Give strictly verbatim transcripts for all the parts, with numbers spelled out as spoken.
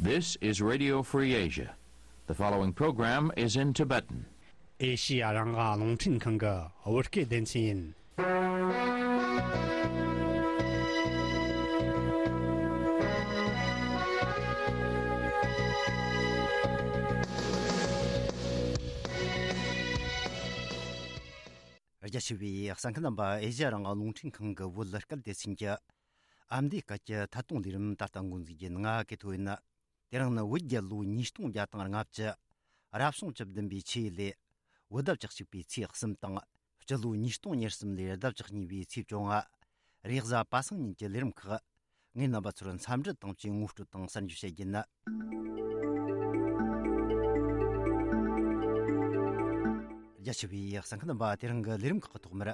This is Radio Free Asia. The following program is in Tibetan. ཨེ་ཤི་ཡ་རང་དབང་རླུང་འཕྲིན་ཁང་གི་བོད་སྐད་སྡེ་ཚན་ཡིན། རྒྱ་ཆེ་བའི་གསན་མཁན་རྣམ་པ། ཨེ་ཤི་ཡ་རང་དབང་རླུང་འཕྲིན་ཁང་གི་བོད་སྐད་སྡེ་ཚན་གྱི་ཨ་མདོའི་སྐད་ཀྱི་ཐད་གཏོང་ལས་རིམ་ད་ལྟ་འགོ་འཛུགས་རྒྱུ་ཡིན། ང་གི་ཐོ་ཡིན། དེ་རིང་ནི་བོད་རྒྱལ་ལོ་ཉིས་སྟོང་བརྒྱ་དང་ལྔ་བཅུ། རབ་བྱུང་བཅུ་བདུན་པའི་ཆུ་ཡོས་ལོའི་བོད་ཟླ་བཅུ་གཅིག་པའི་ཚེས་གསུམ་དང་། སྤྱི་ལོ་ཉིས་སྟོང་ཉེར་གསུམ་ལོའི་ཟླ་བཅུ་གཉིས་པའི་ཚེས་བཅོ་ལྔ། རེས་གཟའ་པ་སངས་ཉིན་གྱི་ལས་རིམ་ཁག་ངས་རྣམ་པ་ཚོར་འཚམས་འདྲི་དང་བཅས་ངོ་སྤྲོད་དང་གསར་འགྱུར་བཤད་རྒྱུ་ཡིན། རྒྱ་ཆེ་བའི་གསན་མཁན་རྣམ་པ། དེ་རིང་གི་ལས་རིམ་ཁག་གི་ཐོག་མར།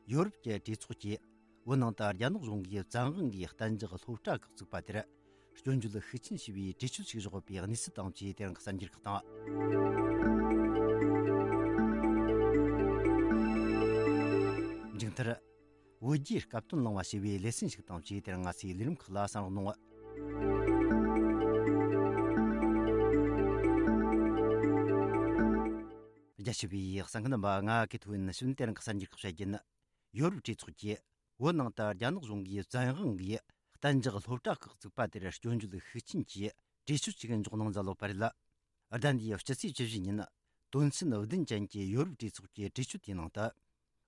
ཡོ་རོབ་ཀྱི་གྲོས་ཚོགས་ཀྱིས་བོད་ནང་དུ་རྒྱ་ནག་གཞུང་གིས་བཙན་དབང་གིས་གཏན་འཇགས་སློབ་གྲྭ་ཁག་བཙུགས་པ་དེར་སྐྱོན་བརྗོད་ཤུགས་ཆེན་བྱས་པའི་གྲོས་ཆོད་ཅིག་བཞག་ཡོད་པའི་གནས་ཚུལ་དང་བཅས་དེ་རིང་གི་གསར་འགྱུར་ཁག་དང་། མཇུག་མཐར། བོད་རྒྱའི་སྐབས་དོན་གླེང་བ་ཞེས་པའི་ལེ་ཚན་ཞིག་དང་བཅས་དེ་རིང་ང་ཚོའི་ལས་རིམ་ཁག་ལ་གསན་རོགས་གནང་། རྒྱ་ཆེ་བའི་གསན་མཁན་རྣམ་པ། ང་གི་ཐོ་ཡིན། ཞུ་ཡིན། དེ་རིང་གི་གསར་འགྱུར་ཁག་བཤད་རྒྱུ་ཡིན། ཡོ་རོབ་གྲོས་ཚོགས་ཀྱིས་བོད་ནང་དུ་རྒྱ་ནག་གཞུང་གིས་བཙན་དབང་གིས་གཏན་འཇགས་སློབ་གྲྭ་ཁག་བཙུགས་པ་དེར་སྐྱོན་བརྗོད་ཤུགས་ཆེན་གྱིས་གྲོས་ཆོད་ཅིག་འཇོག་གནང་མཛད་ཡོད་པ་རེད། ཟླ་འདིའི་སྤྱི་ཚེས་བཅུ་བཞི་ཉིན་དོན་ཚན་བདུན་ཅན་གྱི་ཡོ་རོབ་གྲོས་ཚོགས་ཀྱི་གྲོས་ཆོད་དེའི་ནང་དུ།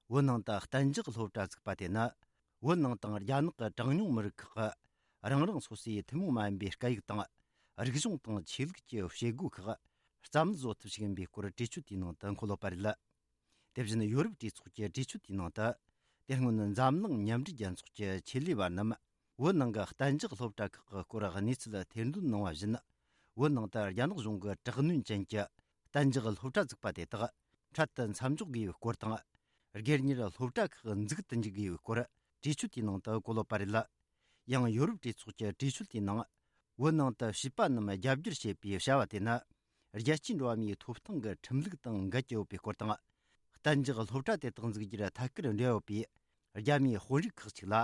བོད་ནང་དུ་གཏན་འཇགས་སློབ་གྲྭ་བཙུགས་པ་དེ་ནི། བོད་ནང་དང་རྒྱ་ནག་གི་གྲངས་ཉུང་མི་རིགས་ཁག་གི་རང་རང་སོ་སོའི་ཐུན་མོང་མ་ཡིན་པའི་སྐད་ཡིག་དང་། རིག་གཞུང་དང་ཆོས་ལུགས་ཀྱི་བྱེད་སྒོ་ཁག་རྩ་མེད་བཟོ་ཐབས་ཤིག་ཡིན་པའི་སྐོར་གྲོས་ཆོད་དེའི་ནང་དུ་འཁོད་ཡོད་པ་རེད། དེ་བཞིན་ཡོ་རོབ་གྲོས་ཚོགས་ཀྱི་གྲོས་ཆོད་དེའི་ནང་དུ། དེ་སྔོན་འཛམ་གླིང་མཉམ་འབྲེལ་རྒྱལ་ཚོགས་ཀྱི་ཆེད་ལས་པ་རྣམས། བོད་ནང་གི་གཏན་འཇགས་སློབ་གྲྭ་ཁག་གི་སྐོར་གནས་ཚུལ་ཐེར་འདོན་གནང་བ་བཞིན། བོད་ནང་དུ་རྒྱ་ནག་གཞུང་གི་དྲག་གནོན་ཅན་གྱི་གཏན་འཇགས་སློབ་གྲྭ་བཙུགས་པ་དེ་དག་འཕྲལ་དུ་མཚམས་འཇོག་དགོས་པའི་སྐོར་དང་། སྒེར་གཉེར་སློབ་གྲྭ་ཁག་འཛུགས་དུ་འཇུག་དགོས་པའི་སྐོར་གྲོས་ཆོད་དེའི་ནང་དུ་བཀོད་ཡོད་པ་རེད། ཡང་ཡོ་རོབ་གྲོས་ཚོགས་ཀྱི་གྲོས་ཆོད་དེའི་ནང་། བོད་ནང་དུ་བྱིས་པ་རྣམས་རྒྱ་སྒྱུར་བྱེད་པའི་བྱ་བ་དེ་ནི། རྒྱལ་སྤྱིའི་འགྲོ་བ་མིའི་ཐོབ་ཐང་གི་ཁྲིམས་ལུགས་དང་འགལ་གྱི་ཡོད་པའི་སྐོར་དང་། གཏན་འཇགས་སློབ་གྲྭ་དེ་དག་འཛུགས་རྒྱུར་ཐད་ཀར་འབྲེལ་ཡོད་པའི་རྒྱ་མིའི་དཔོན་རིགས་ཁག་ཅིག་ལ།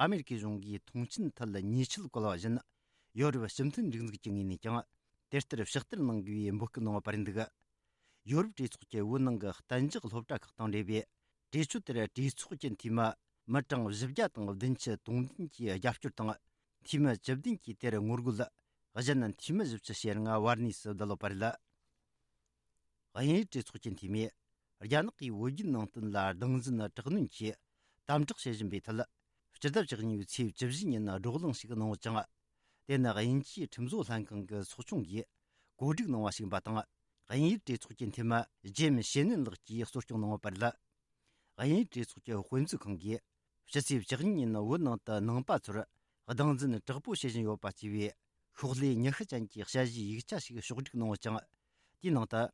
ཨ་མེ་རི་ཀའི་གཞུང་གིས་མཐོང་ཆེན་ཐད་ཉེས་ཆད་བཀལ་བ་བཞིན། ཡོ་རོབ་སྤྱི་མཐུན་རིག་འཛུགས་ཀྱི་ངོས་ནས་ཀྱང་། དེ་ལྟར་ཕྱག་བསྟར་གནང་དགོས་པའི་འབོད་སྐུལ་གནང་བ་རེད་འདུག་ཡོ་རོབ་གྲོས་ཚོགས་ཀྱི་བོད་ནང་གི་གཏན་འཇགས་སློབ་གྲྭ་ཁག་དང་འབྲེལ་བའི་གྲོས་ཆོད་དེར་གྲོས་ཚོགས་ཀྱི་འཐུས་མི་མི་གྲངས་བཞི་བརྒྱ་དང་བདུན་ཅུ་དོན་བདུན་གྱིས་རྒྱབ་སྐྱོར་དང་། འཐུས་མི་བཅུ་བདུན་གྱིས་དེར་ངོ་རྒོལ། གཞན་འཐུས་མི་བཞི་བཅུ་ཞེ་ལྔ་བར་གནས་སུ་བསྡད་ཡོད་པ་རེད། དབྱིན་ཡུལ་གྲོས་ཚོགས་ཀྱི་འཐུས་མིས། རྒྱ་ནག་གིས་བོད་བརྒྱུད་ནང་བསྟན་ལ་སྟངས་འཛིན་དྲག་གནོན་གྱིས་དམ་དྲག་བྱེད་བཞིན་པའི་ཐད། སྤྱི་ཟླ་བཅུ་གཉིས་པའི་ཚེས་བཅུ་བཞི་ཉིན་བགྲོ་གླེང་ཞིག་གནང་ཡོད་ཅིང་། དེ་ནི་དབྱིན་ཇིའི་ཁྲིམས་བཟོ་ལྷན་ཁང་གི་ཚོགས་ཆུང་གིས་གོ་སྒྲིག་གནང་བ་ཞིག་ཡིན་པ་དང་། དབྱིན་ཡུལ་གྲོས་ཚོགས་ཀྱི་འཐུས་མི་ཇེམ་ཤེ་ནན་ལགས་ཀྱིས་གཙོ་སྐྱོང་གནང་ཡོད་པ་རེད། དབྱིན་ཡུལ་གྲོས་ཚོགས་ཀྱི་དཔེ་མཛོད་ཁང་གིས་ཕྱི་ཚེས་བཅུ་གཉིས་ཉིན་བོད་ནང་དུ་ནང་པ་ཚོར་སྟངས་འཛིན་དྲག་པོ་བྱེད་བཞིན་ཡོད་པ་ཅེས་པའི་ཤོག་ལྷེ་ཉི་ཤུ་ཅན་གྱི་དཔྱད་གཞིའི་ཡིག་ཆ་ཞིག་ཕྱོགས་སྒྲིག་གནང་ཡོད་ཅིང་། དེའི་ནང་དུ།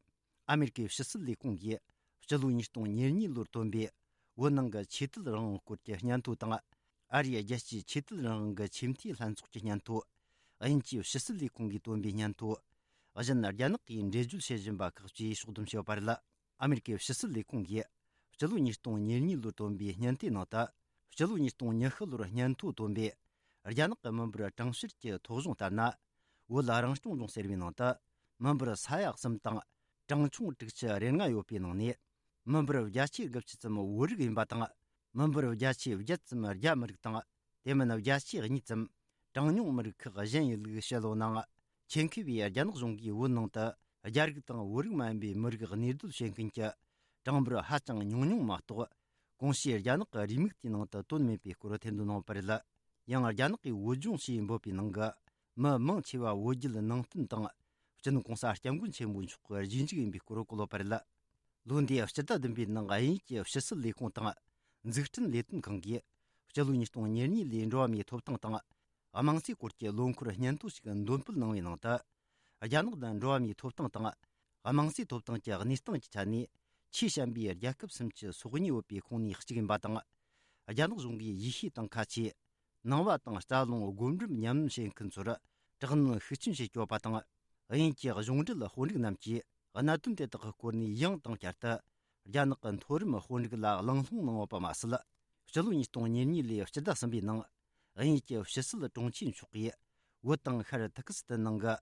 ཨ་མེ་རི་ཀའི་ཕྱི་སྲིད་ལས་ཁུངས་ཀྱིས་སྤྱི་ལོ་ཉིས་སྟོང་ཉེར་གཉིས་ལོར་བཏོན་པའི་བོད་ནང་གི་ཆོས་དད་རང་དབང་སྐོར་གྱི་སྙན་ཐོ་དང་། ཨ་རིའི་རྒྱལ་སྤྱིའི་ཆོས་དད་རང་དབང་གི་ཆེས་མཐོའི་ལྷན་ཚོགས་ཀྱི་སྙན་ཐོ། དབྱིན་ཇིའི་ཕྱི་སྲིད་ལས་ཁུངས་ཀྱིས་བཏོན་པའི་སྙན་ཐོ། གཞན་རྒྱ་ནག་གིས་འགྲེལ་བརྗོད་བྱེད་བཞིན་པ་ཁག་བཅས་ཕྱོགས་བསྡོམས་བྱས་ཡོད་པ་རེད། ཨ་མེ་རི་ཀའི་ཕྱི་སྲིད་ལས་ཁུངས་ཀྱིས་སྤྱི་ལོ་ཉིས་སྟོང་ཉེར་གཉིས་ལོར་བཏོན་པའི་སྙན་ཐོའི་ནང་དུ། སྤྱི་ལོ་ཉིས་སྟོང་ཉི་ཤུ་ལོར་སྙན་ཐོ་བཏོན་པའི་རྒྱ་ནག་གི་མི་འབོར་གྲངས་བཤེར་གྱི་ཐོ་གཞུང་ལྟར་ན། བོད་རང་སྐྱོང་ལྗོངས་ཟེར་བའི་ནང་དུ། མི་འབོར་ས་ཡ་གསུམ་དང་གྲངས་ཆུང་དྲུག་ཅུ་རེ་ལྔ་ཡོད་པའི་ནང་ནས། མི་འབོར་བརྒྱ་ཆའི་དགུ་བཅུ་ཙམ་བོད་རིགས་ཡིན་པ་དང་། མི་འབོར་བརྒྱ་ཆའི་བརྒྱད་ཙམ་རྒྱ་མི་རིགས་དང་། དེ་མིན་བརྒྱ་ཆའི་གཉིས་ཙམ་གྲངས་ཉུང་མི་རིགས་ཁག་གཞན་ཡིན་ལུགས་བཤད་ཡོད་ནའང་། ཆེད་མཁས་པས་རྒྱ་ནག་གཞུང་གིས་བོད་ནང་དུ་རྒྱ་རིགས་དང་བོད་རིགས་མ་ཡིན་པའི་མི་རིགས་གནས་སྡོད་བྱེད་མཁན་གྱི་གྲངས་འབོར་ཧ་ཅང་ཉུང་ཉུང་མ་གཏོགས། གོང་ཞུས་རྒྱ་ནག་གི་རེའུ་མིག་དེའི་ནང་དུ་བཏོན་མེད་པའི་སྐོར་ཐེར་འདོན་གནང་ཡོད་པ་རེད། ཡང་རྒྱ་ནག་གིས་བོད་ལྗོངས་ཞེས་འབོད་པའི་ནང་གི་མི་མང་ཆེ་བ་བོད་བརྒྱུད་ནང་བསྟན་དང་། སྤྱི་ནོར་༸གོང་ས་༸སྐྱབས་མགོན་ཆེན་པོ་མཆོག་གི་རྗེས་འཇུག་ཡིན་པའི་སྐོར་བཀོད་ཡོད་པ་རེད། ལོ་འདིའི་སྤྱི་ཟླ་བདུན་པའི་ནང་དབྱིན་ཡུལ་གྱི་ཕྱི་སྲིད་ལས་ཁུངས་དང་། འཛུགས་སྐྲུན་ལས་དོན་ཁང་གིས་སྤྱི་ལོ་ཉིས་སྟོང་ཉེར་གཉིས་ལོའི་འགྲོ་བ་མིའི་ཐོབ་ཐང་དང་། དམངས་གཙོའི་སྐོར་གྱི་ལོ་འཁོར་སྙན་ཐོ་ཞིག་འདོན་སྤེལ་གནང་བའི་ནང་དུ། རྒྱ་ནག་ནི་འགྲོ་བ་མིའི་ཐོབ་ཐང་དང་། དམངས་གཙོའི་ཐོབ་ཐང་གི་གནས་སྟངས་ཀྱི་ཆ་ནས་ཆེས་ཞན་པའི་རྒྱལ་ཁབ་སུམ་ཅུ་སོ་གཉིས་ཡོད་པའི་ཁོངས་ནས་གཅིག་ཡིན་པ་དང་། རྒྱ་ནག་གཞུང་གིས་ཡེ་ཤུ་དང་ཁ་ཆེ། ནང་པ་དང་རྩ་རླུང་སྒོམ་སྒྲུབ་ཉམས་ལེན་བྱེད་མཁན་ཚོར་དྲག་གནོན་ཤུགས་ཆེན་བྱེད་ཀྱི་ཡོད་པ་དང་། དབྱིན་ཡུལ་གྱི་གཞུང་འབྲེལ་དཔོན་རིགས་རྣམས་ཀྱིས་གནད་དོན་དེ་དག་གི་སྐོར་ནས་ཡང་དང་བསྐྱར་དུ་རྒྱ་ནག་གི་མཐོ་རིམ་དཔོན་རིགས་ལ་གླེང་སློང་གནང་ཡོད་པ་མ་ཟད། སྤྱི་ལོ་ཉིས་སྟོང་ཉེར་གཉིས་ལོའི་སྤྱི་ཟླ་གསུམ་པའི་ནང་། དབྱིན་ཡུལ་གྱི་ཕྱི་སྲིད་དྲུང་ཆེ་མཆོག་གིས། བོད་དང་ཤར་ཐི་ཀི་སི་ཐན་ནང་གི་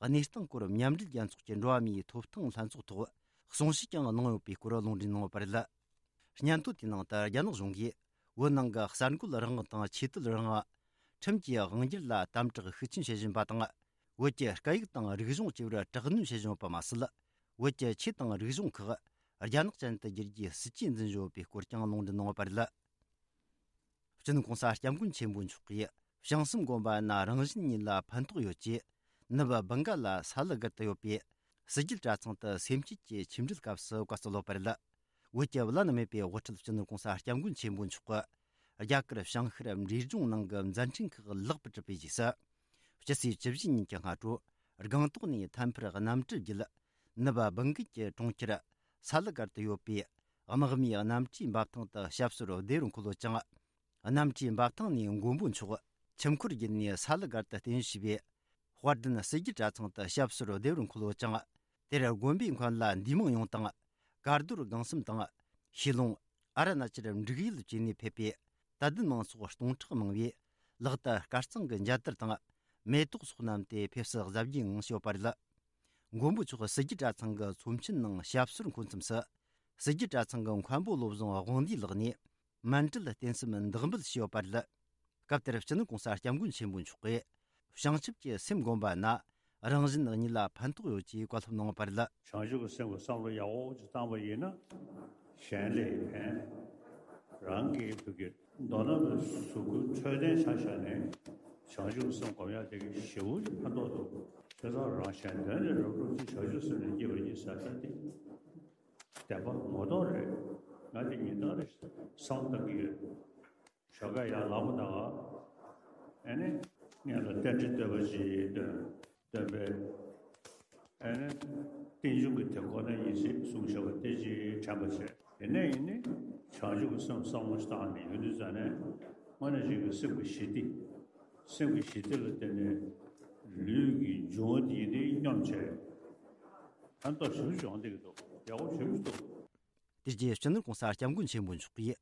གནས་སྟངས་སྐོར་མཉམ་འབྲེལ་རྒྱལ་ཚོགས་ཀྱི་འགྲོ་བ་མིའི་ཐོབ་ཐང་ལྷན་ཚོགས་ཐོག་གསུང་བཤད་ཀྱང་གནང་ཡོད་པའི་སྐོར་ལུང་འདྲེན་གནང་ཡོད་པ་རེད། སྙན་ཐོ་དེའི་ནང་དུ་རྒྱ་ནག་གཞུང་གིས་བོད་ནང་གི་གསར་འགོད་རང་དབང་དང་ཆོས་དད་རང་དབང་། ཁྲིམས་ཀྱི་དབང་སྒྱུར་ལ་དམ་དྲག་ཤུགས་ཆེན་བྱེད་བཞིན་པ་དང་། བོད་ཀྱི་སྐད་ཡིག་དང་རིག་གཞུང་བཅས་པར་དྲག་གནོན་བྱེད་བཞིན་ཡོད་པ་མ་ཟད། བོད་ཀྱི་ཆོས་དང་རིག་གཞུང་ཁག་རྒྱ་ནག་ཅན་དུ་བསྒྱུར་རྒྱུའི་སྲིད་ཇུས་འཛིན་བཞིན་ཡོད་པའི་སྐོར་ཀྱང་ལུང་འདྲེན་གནང་ཡོད་པ་རེད། སྤྱི་ནོར་གོང་ས་སྐྱབས་མགོན་ཆེན་པོ་མཆོག་གིས་བྱང་སེམས་དགོན་པ་ན་རང་བཞིན་ཉིད་ལ་ཕན་ཐོགས་ཡོད་ཅེས། ནུབ་སྦུག་ག་ལ་ས་ལུ་སྒར་དུ་ཡོད་པའི་སྲིད་བརྒྱུད་གྲྭ་ཚང་དུ་སེམས་བསྐྱེད་ཀྱི་ཆིངས་འགྲིལ་སྐབས་སུ་བཀའ་སྩལ་ཡོད་པ་རེད། བོད་ཀྱི་བླ་ན་མེད་པའི་དབུ་ཁྲིད་སྤྱི་ནོར་གོང་ས་སྐྱབས་མགོན་ཆེན་པོ་མཆོག་གིས་རྒྱ་གར་བྱང་ཤར་འབྲས་ལྗོངས་ནང་གི་མཛད་འཕྲིན་ཁག་ལེགས་པར་གྲུབ་པའི་རྗེས་སུ། ཕྱི་ཚེས་བཅུ་བཞི་ཉིན་གྱི་སྔ་དྲོ་སྒང་ཏོག་ནས་ཐད་འཕུར་གནམ་གྲུ་བརྒྱུད་ནུབ་སྦུག་གི་གྲོང་ཁྱེར་ས་ལུ་སྒར་དུ་ཡོད་པའི་དམག་མིའི་གནམ་གྲུའི་འབབ་ཐང་དུ་ཞབས་སོར་བདེ་རུ་འཁོད་ཡོད་ཅིང་། གནམ་གྲུའི་འབབ་ཐང་ནས་མགོན་པོ་མཆོག་ཁྱིམ་འཁོར་བརྒྱུད་ནས་ས་ལུ་སྒར་དུ་རྟེན་གཞི་བྱས་པའི་དཔལ་ལྡན་སྲིད་བརྒྱུད་གྲྭ་ཚང་དུ་ཞབས་སོར་བདེ་རུ་འཁོད་ཡོད་ཅིང་། དེར་དགོན་པའི་མཁན་བླ་འདུས་མང་ཡོངས་དང་། གར་རྡོར་སྒང་གསུམ་དང་། ཤེས་ལོང་། ཨ་རུ་ན་ཅལ་འབྲུག་ཡུལ་བཅས་ནས་ཕེབས་པའི་དད་ལྡན་མང་ཚོགས་སྟོང་ཕྲག་མང་བས། ལག་ཏུ་དཀར་གཙང་གི་མཇལ་དར་དང་། མེ་ཏོག་སོགས་བསྣམས་ཏེ་ཕེབས་བསུ་གཟབ་རྒྱས་ངང་བྱས་ཡོད་པ་རེད། མགོན་པོ་མཆོག་སྲིད་བརྒྱུད་གྲྭ་ཚང་གི་ཚོམས་ཆེན་ནང་ཞབས་སོར་འཁོད་མཚམས་སུ། སྲིད་རྒྱུད་གྲྭ་ཚང་གི་མཁན་པོ་བློ་བཟང་དབང་འདུས་ལགས་ནས། མཎྜལ་རྟེན་གསུམ་བདག་འབུལ་བྱས་ཡོད་པ་རེད། སྐབས་དེར་སྤྱི་ནོར་གོང་ས་སྐྱབས་མགོན་ཆེན་པོ་མཆོག་གིས། བྱང་ཆུབ་ཀྱི་སེམས་བསྒོམ་པ་ན་རང་གཞན་གཉིས་ལ་ཕན་ཐོགས་ཡོད་ཅེས་བཀའ་སློབ་གནང་བ་རེད། བྱང་ཆུབ་ཀྱི་སེམས་ཀྱི་བསམ་བློ་ཡག་པོ་ཅིག་བཏང་པ་ཡིན་ན། གཞན་ལ་ཕན། རང་གི་བུ་གའི་མདོར་ན་གཟུགས་པོ་འཕྲོད་བསྟེན་ཆ་བཞག་ནས་བྱང་ཆུབ་ཀྱི་སེམས་བསྒོམ་ཡག་དེ་གི་ཞེ་པོ་ཅིག་ཕན་ཐོགས་འདུག་བྱས་ཙང་རང་གཞན་དོན་ལས་རབ་བསྒྲུབ་ཅིང་བྱང་ཆུབ་སེམས་ལ་སྐྱེས་པ་ཡིན་ཟེར་ད་དེ། བདེན་པ་ངོ་ཐོག་རེད། ང་དེ་ཉིན་ལྟར་རེ་བསམ་བློ་བཏང་གི་ཡོད། ཞོགས་ཀ་ཡར་ལངས་པ་དང་། ཨ་ནི། སྔོན་ལ་རྟེན་འབྲེལ་བསྟོད་པ་ཅིག་འདོན། འདོན་པས། ཨ་ནི། རྟེན་འབྱུང་གི་དེ་ཁོ་ན་ཡིན་ཟེར་གསུངས་བཞག་པ་དེ་ཅིག་དྲན་པ་བྱས། དེ་ནས་ཡིན་ནི། བྱང་ཆུབ་ཀྱི་སེམས་བསམ་བློ་ཞིག་བཏང་ནས་ཡོང་དུས་ཙ་ནས། དངོས་གནས་བྱས་ཀྱི་སེམས་ཀྱི་ཞི་བདེ། སེམས་ཀྱི་ཞི་བདེ་ལ་བརྟེན་ནས་ལུས་ཀྱི་འབྱུང་བ་དེ་ཡིན་དེ་སྙོམས་བྱས། ཕན་ཐོགས་ཞེ་པོ་ཅིག་ཡོང་བསྡད་ཀྱི་འདུག་ཡག་པོ་ཞེ་པོ་ཅིག་འདུག་དེ་རྗེས་སྤྱི་ནོར་༸གོང་ས་༸སྐྱབས་མགོན་ཆེན་པོ་མཆོག་གིས་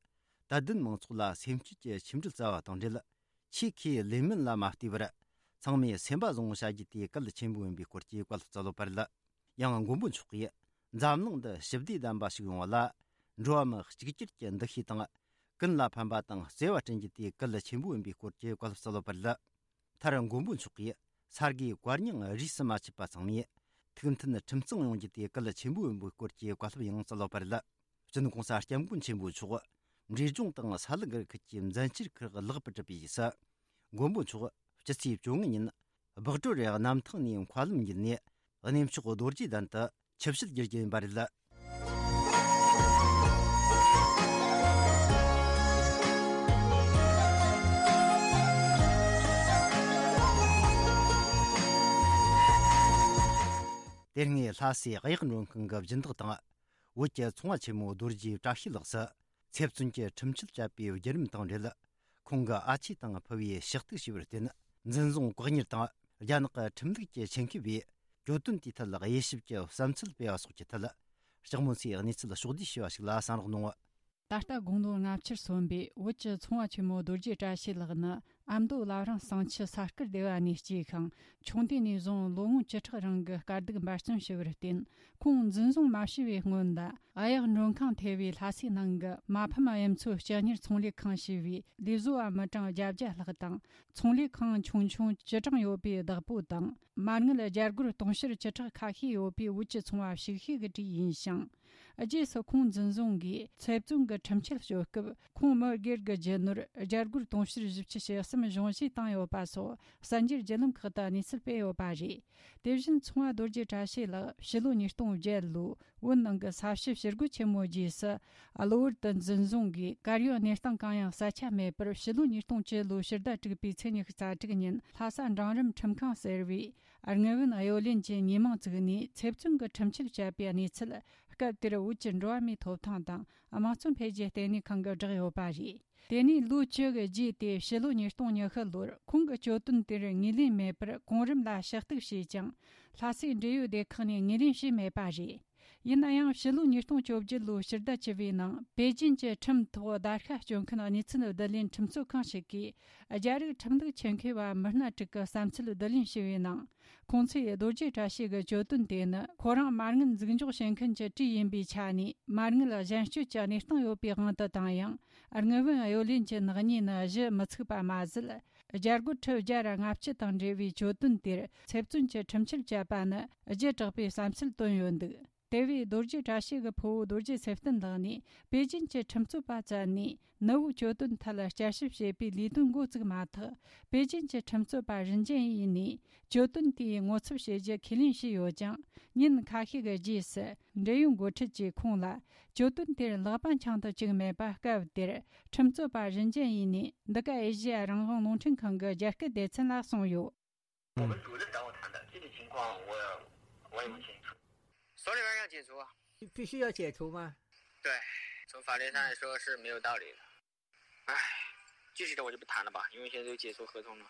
དད་ལྡན་མང་ཚོགས་ལ་སེམས་བསྐྱེད་ཀྱི་ཆིངས་འགྲིལ་སྩལ་བ་དང་འབྲེལ། ཆོས་ཁས་ལེན་མིན་ལ་མ་ལྟོས་པར། ཚང་མས་སེམས་པ་བཟང་བོ་བྱ་རྒྱུ་དེ་གལ་ཆེན་པོ་ཡིན་པའི་སྐོར་གྱི་བཀའ་སློབ་སྩལ་ཡོད་པ་རེད། ཡང་མགོན་པོ་མཆོག་གིས། འཛམ་གླིང་འདི་ཞི་བདེ་ལྡན་པ་ཞིག་ཡོང་བ་ལ། འགྲོ་བ་མི་གཅིག་གྱུར་གྱི་འདུ་ཤེས་དང་། ཀུན་ལ་ཕན་པ་དང་བརྩེ་བ་བསྐྲུན་རྒྱུ་དེ་གལ་ཆེན་པོ་ཡིན་པའི་སྐོར་གྱི་བཀའ་སློབ་སྩལ་ཡོད་པ་རེད། མཐར་མགོན་པོ་མཆོག་གིས་ས་དགེ་བཀའ་རྙིང་རིས་སུ་མ་ཆད་པ་ཚང་མས་ཐུགས་མཐུན་ཁྲིམས་གཙང་ཡོང་རྒྱུ་དེ་གལ་ཆེན་པོ་ཡིན་པའི་སྐོར་གྱི་བཀའ་སློབ་ཡང་སྩལ་ཡོད་པ་རེད། སྤྱི་ནོར་༸གོང་ས་༸སྐྱབས་མགོན་ཆེན་པོ་མཆོག་འབྲས་ལྗོངས་དང་ས་ལུ་སྒར་ཁུལ་གྱི་མཛད་འཆར་ཁག་ལེགས་པར་གྲུབ་པའི་རྗེས་སུ། མགོན་པོ་མཆོག་སྤྱི་ཚེས་བཅོ་ལྔ་ཉིན་སྦག་གྲོ་རེ་གནམ་ཐང་ནས་མཁའ་ལམ་བརྒྱུད་ནས་གནས་མཆོག་རྡོ་རྗེ་གདན་དུ་ཆིབས་ཞལ་བསྒྱུར་རྒྱུ་ཡིན་པ་རེད། དེ་སྔའི་ལྷ་སའི་གཡག་མགྲོན་ཁང་གི་སྦྱིན་བདག་དང་། བོད་ཀྱི་ཚོང་བ་ཆེན་མོ་རྡོ་རྗེ་བཀྲ་ཤིས་ལགས་སུ་ཚེ་བཙོན་གྱི་ཁྲིམས་ཆད་བཅད་པའི་བརྒྱུད་རིམ་དང་འབྲེལ། ཁོང་གི་ཨ་ཆེ་དང་ཕུ་བོས་ཕྱག་ཐུག་ཞུས་པར་བརྟེན། འཛིན་བཟུང་བཀག་ཉར་དང་རྒྱ་ནག་གི་ཁྲིམས་ལུགས་ཀྱི་ཆེད་མཁས་པས་གྱོད་དོན་དེའི་ཐད་དབྱེ་ཞིབ་ཀྱི་བསམ་ཚུལ་སྤེལ་བ་སོགས་ཀྱི་ཐད། ལྕགས་མོ་མཚོས་གནས་ཚུལ་ཕྱོགས་བསྡུས་ཞུས་པ་ཞིག་ལ་གསན་རོགས་གནང་། ད་ལྟ་དགུང་ལོ་ལྔ་བཅུར་སོན་པའི་བོད་ཀྱི་ཚོང་བ་ཆེན་མོ་རྡོ་རྗེ་བཀྲ་ཤིས་ལགས་ནི་ཨ་མདོ་བླ་བྲང་གསང་ཆུ་ས་དཀར་སྡེ་བ་ནས་སྐྱེས་ཤིང་། ཆུང་དུས་ནས་བཟུང་ལོ་ངོ་བཅུ་ཕྲག་རིང་གི་དཀའ་སྡུག་འབད་བརྩོན་ཞུ་བར་བརྟེན། ཁོང་འཛིན་བཟུང་མ་བྱས་པའི་སྔོན་ལ། གཡག་མགྲོན་ཁང་ཐེ་བའི་ལྷ་སའི་ནང་གི་མ་ཕམ་གཡུ་མཚོ་སྤྱི་གཉེར་ཚོང་ལས་ཁང་ཞེས་པའི་ལས་བཟོ་བ་མི་གྲངས་བརྒྱད་བརྒྱ་ལྷག་དང་། ཚོང་ལས་ཁང་ཆུང་ཆུང་བཅུ་གྲངས་ཡོད་པའི་བདག་པོ་དང་། མ་དངུལ་རྒྱ་སྒོར་དུང་ཕྱུར་བཅུ་ཕྲག་ཁ་ཤས་ཡོད་པའི་བོད་ཀྱི་ཚོང་བ་ཞིག་ཤོས་ཀྱི་གྲས་ཡིན་ཞིང་། རྗེས་སུ་ཁོང་འཛིན་བཟུང་གིས་ཚེ་བཙོན་གྱི་ཁྲིམས་ཆད་གཅོད་སྐབས། ཁོང་མི་སྒེར་གྱི་རྒྱུ་ནོར་རྒྱ་སྒོར་དུང་ཕྱུར་བཞི་བཅུ་ཞེ་གསུམ་གཞུང་བཞེས་བཏང་ཡོད་པ་སོགས་གསར་འགྱུར་བརྒྱུད་ལམ་ཁག་ཏུ་གནས་ཚུལ་སྤེལ་ཡོད་པ་རེད། དེ་བཞིན་ཚོང་བ་རྡོ་རྗེ་བཀྲ་ཤིས་ལགས་ཕྱི་ལོ་ཉིས་སྟོང་བརྒྱད་ལོའི་བོད་ནང་གི་ས་བྱི་ཞི་རྒོལ་ཆེན་མོའི་རྗེས་སུ། གློ་བུར་དུ་འཛིན་བཟུང་གིས་གར་ཡོད་གནས་སྟངས་གང་ཡང་གསལ་ཆ་མེད་པར། ཕྱི་ལོ་ཉིས་སྟོང་བཅུ་ལོའི་ཕྱི་ཟླ་དྲུག་པའི་ཚེས་ཉི་ཤུ་རྩ་དྲུག་ཉིན་ལྷ་ས་འབྲིང་རིམ་ཁྲིམས་ཁང་ཟེར་བའི་དངུལ་བུན་གཡོ་ལེན་གྱི་ཉེས་མིང་བཙུགས་ནས་ཚེ་བཙོན་གྱི་ཁྲིམས་ཆད་བཅད་པའི་གནས་ཚུལ། སྐབས་དེར་བོད་ཀྱི་འགྲོ་བ་མིའི་ཐོབ་ཐང་དང་དམངས་གཙོ་འཕེལ་རྒྱས་ལྟེ་གནས་ཁང་གིས་བསྒྲགས་ཡོད་པ་རེད། དེ་ནས་ལོ་བཅུ་གི་རྗེས་ཏེ་ཕྱི་ལོ་ཉིས་སྟོང་ཉི་ཤུ་ལོར་ཁོང་གི་གྱོད་དོན་དེར་ངོས་ལེན་མེད་པར་གོང་རིམ་ལ་ཞུ་གཏུག་བྱས་ཀྱང་། ལྷ་སའི་འབྲེལ་ཡོད་སྡེ་ཁག་ནས་ངོས་ལེན་བྱས་མེད་པ་རེད། ཡིན་ན་ཡང་ཕྱི་ལོ་ཉིས་སྟོང་བཅོ་བརྒྱད་ལོའི་ཕྱི་ཟླ་བཅུ་པའི་ནང་པེ་ཅིན་གྱི་ཁྲིམས་ཐོག་བརྡར་ཤ་གཅོད་མཁན་གནས་ཚུལ་བསྡུ་ལེན་ཁྲིམས་རྩོད་ཁང་ཞིག་གིས་རྒྱ་རིགས་ཁྲིམས་ལུགས་ཆེད་མཁས་པ་མི་སྣ་དྲུག་གི་བསམ་ཚུལ་བསྡུ་ལེན་བྱས་པའི་ནང་། ཁོང་ཚོས་རྡོ་རྗེ་བཀྲ་ཤིས་ཀྱི་གྱོད་དོན་དེ་ནི་ཁོ་རང་མ་དངུལ་འཛུགས་འཇོག་བྱེད་མཁན་གྱི་གྲས་ཡིན་པའི་ཆ་ནས་མ་དངུལ་གཞན་སྤྱོད་ཀྱི་གནས་སྟངས་ཡོད་པའི་དབང་དུ་བཏང་ཡང་། དངུལ་བུན་གཡོ་ལེན་གྱི་ནག་ཉེས་ནི་གཞི་མི་ཚུགས་པ་མ་ཟད། རྒྱ་སྒོར་ཁྲི་བརྒྱ་ར་ལྔ་བཅུ་དང་འབྲེལ་བའི་གྱོད་དོན་དེར་ཚེ་བཙོན་གྱི་ཁྲིམས་ཆད་བཅད་པ་ནི་བརྗེད་དྲགས་པའི་བསམ་ཚུལ་བཏོན་ཡོད་འདུག་དེ་བས་རྡོ་རྗེ་བཀྲ་ཤིས་ཀྱི་ཕུ་བོ་རྡོ་རྗེ་ཚེ་བརྟན་ལགས་ནས་པེ་ཅིན་གྱི་ཁྲིམས་རྩོད་པ་བཙལ་ནས་ནུ་བོའི་གྱོད་དོན་ཐད་བསྐྱར་ཞིབ་བྱེད་པའི་ལས་དོན་འགོ་བཙུགས་མ་ཐག་པེ་ཅིན་གྱི་ཁྲིམས་རྩོད་པ་རིན་ཅན་ཡིས་ནས་གྱོད་དོན་དེའི་ངོ་ཚབ་བྱེད་རྒྱུ་ཁས་ལེན་བྱས་ཡོད་ཀྱང་། ཉིན་ཁ་ཤས་ཀྱི་རྗེས་སུ་འབྲེལ་ཡོད་འགོ་ཁྲིད་ཀྱིས་ཁོང་ལ་གྱོད་དོན་དེར་ལག་པ་འཆང་དུ་བཅུག་མེད་པ། སྐབས་དེར་ཁྲིམས་རྩོད་པ་རིན་ཅན་ཡིས་ནས་འདི་ག་ཨེ་ཤེ་ཡ་རང་དབང་རླུང་འཕྲིན་ཁང་གི་རྒྱ་སྐད་སྡེ་ཚན་ལ་གསུངས་ཡོད། 我们组织找我谈的，具体情况我我也不清楚。 所以要解除啊。必须要解除吗？对，从法律上来说是没有道理的。唉，具体的我就不谈了吧，因为现在都解除合同了。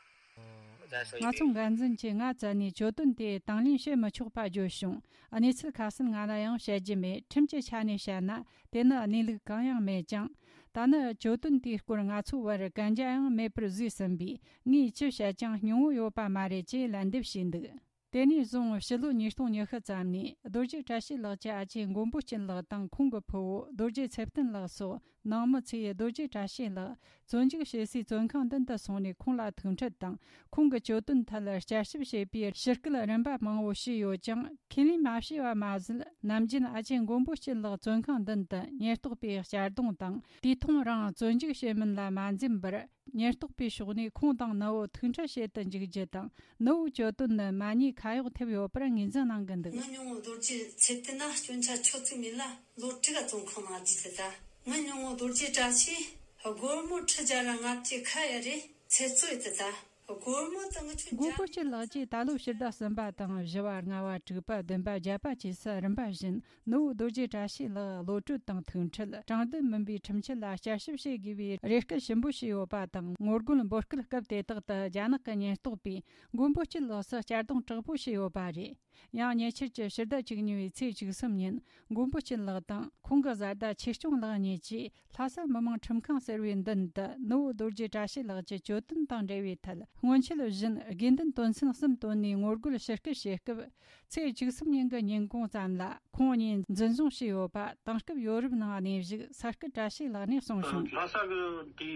我再说一遍。 ང་ཚོ་འགན་འཛིན་གྱིས་ང་བཙལ་ནས་གྱོད་དོན་དེ་དང་ལེན་བྱེད་མི་ཆོག་པ་བརྗོད་བྱུང་། གནས་ཚུལ་ཁ་གསལ་ང་ལ་ཡང་བཤད་རྒྱུ་མེད། ཁྲིམས་ཀྱི་ཆ་ནས་བཤད་ན་དེ་ནི་གནས་ལུགས་གང་ཡང་མེད་ཀྱང་། ད་ནི་གྱོད་དོན་དེའི་སྐོར་ང་ཚོའི་བར་གན་རྒྱ་ཡང་མེད་པར་བཟོས་ཟིན་པས། ངས་ཅི་བཤད་ཀྱང་སྙིང་བོ་ཡོད་པ་མ་རེད་ཅེས་ལན་འདེབས་བྱས་འདུག་དེ་ནས་བཟུང་ཕྱི་ལོ་ཉིས་སྟོང་ཉི་ཤུ་ཙམ་ནས་རྡོ་རྗེ་བཀྲ་ཤིས་ལགས་ཀྱི་ཨ་ཅེ་མགོན་པོ་སྐྱིད་ལགས་དང་ཁོང་གི་ཕུ་བོ་རྡོ་རྗེ་ཚེ་བརྟན་ལགས་སོགས་ནང་མི་ཚོས་རྡོ་རྗེ་བཀྲ་ཤིས་ལགས་བཙོན་འཇུག་བྱེད་སའི་བཙོན་ཁང་མདུན་དུ་སོང་ནས་ཁོང་ལ་ཐུག་འཕྲད་དང་། ཁོང་གི་གྱོད་དོན་ཐད་བསྐྱར་ཞིབ་བྱེད་པའི་ཞུ་སྐུལ་རིམ་པ་མང་བོ་བྱས་ཡོད་ཀྱང་། ཁས་ལེན་མ་བྱས་པ་མ་ཟད། ནམ་རྒྱུན་ཨ་ཅེ་མགོན་པོ་སྐྱིད་ལགས་བཙོན་ཁང་མདུན་དུ་ཉེན་རྟོག་པས་གཅར་རྡུང་དང་། དུས་ཐུང་རིང་བཙོན་འཇུག་བྱེད་མིན་ལ་མ་འཛེམས་པར། ཉེན་རྟོག་པའི་ཕྱོགས་ནས་ཁོང་དང་ནུ་བོ་ཐུག་འཕྲད་བྱེད་དུ་འཇུག་རྒྱུ་དང་། ནུ་བོའི་གྱོད་དོན་ནི་མ་ཉེས་ཁ་གཡོགས་ཐེབས་ཡོད་པར་ངོས་འཛིན་གནང་གི་འདུག་ང་ཉུང་ངུ་རྡོ་རྗེ་ཚེ་བརྟན་ན་སྐྱོན་ཆ་ཆོད་ཚུལ་མིན་ལ་ལོ་དྲུག་ག་བཙོན་ཁང་ནང་བསྡད་དེ་ད། ང་ཉུང་ངུ་རྡོ་རྗེ་བཀྲ་ཤིས་སྒོར་མོ་ཁྲི་བརྒྱ་ར་ལྔ་བཅུ་ཁ་ཡ་རེ་ཚེ་བཙོན་ཡོད་དེ་ད། སྒོར་མོ་དང་ཆུ་མགོན་པོ་སྐྱིད་ལགས་ཀྱིས་ད་ལོ་ཕྱི་ཟླ་གསུམ་པ་དང་བཞི་བ། ལྔ་བ། དྲུག་པ། བདུན་པ། བརྒྱད་པ་བཅས་སུ་རིམ་པ་བཞིན་ནུ་བོ་རྡོ་རྗེ་བཀྲ་ཤིས་ལགས་གློད་གྲོལ་དང་ཐུག་འཕྲད། དྲང་བདེན་མིན་པའི་ཁྲིམས་ཆད་ལ་བསྐྱར་ཞིབ་བྱེད་དགོས་པའི་རེ་སྐུལ་ཞིབ་པོ་བྱས་ཡོད་པ་དང་། ངོ་རྒོལ་འབོད་སྐུལ་སྐབས་དེ་དག་ཏུ་རྒྱ་ནག་གི་ཉེན་རྟོག་པས་མགོན་པོ་སྐྱིད་ལགས་སུ་གཅར་རྡུང་དྲག་པོ་བྱས་ཡོད་པ་རེད། ཡང་ཉེ་ཆར་གྱི་ཕྱི་ཟླ་བཅུ་གཉིས་པའི་ཚེས་བཅུ་གསུམ་ཉིན་མགོན་པོ་སྐྱིད་ལགས་དང་ཁོང་གི་བཟའ་ཟླ་ཆོས་སྐྱོང་ལགས་གཉིས་ཀྱིས། ལྷ་ས་མི་དམངས་ཁྲིམས་ཁང་ཟེར་བའི་མདུན་དུ་ནུ་བོ་རྡོ་རྗེ་བཀྲ་ཤིས་ལགས་ཀྱི་གྱོད་དོན་དང་འབྲེལ་བའི་ཐད་སྔོན་ཆད་བཞིན་དགོས་འདུན་དོན་ཚན་གསུམ་བཏོན་ནས་ངོ་རྒོལ་ཞུ་སྐུལ་བྱེད་སྐབས། ཚེས་བཅུ་གསུམ་ཉིན་གྱི་ཉིན་གུང་ཙམ་ལ་ཁོང་གཉིས་འཛིན་བཟུང་བྱས་ཡོད་པ་དེང་སྐབས་ཡོ་རོབ་ནང་གནས་བཞུགས་ས་སྐུ་བཀྲ་ཤིས་ལགས་ནས་གསུངས་བྱུང་། ལྷ་ས་གི་དེའི་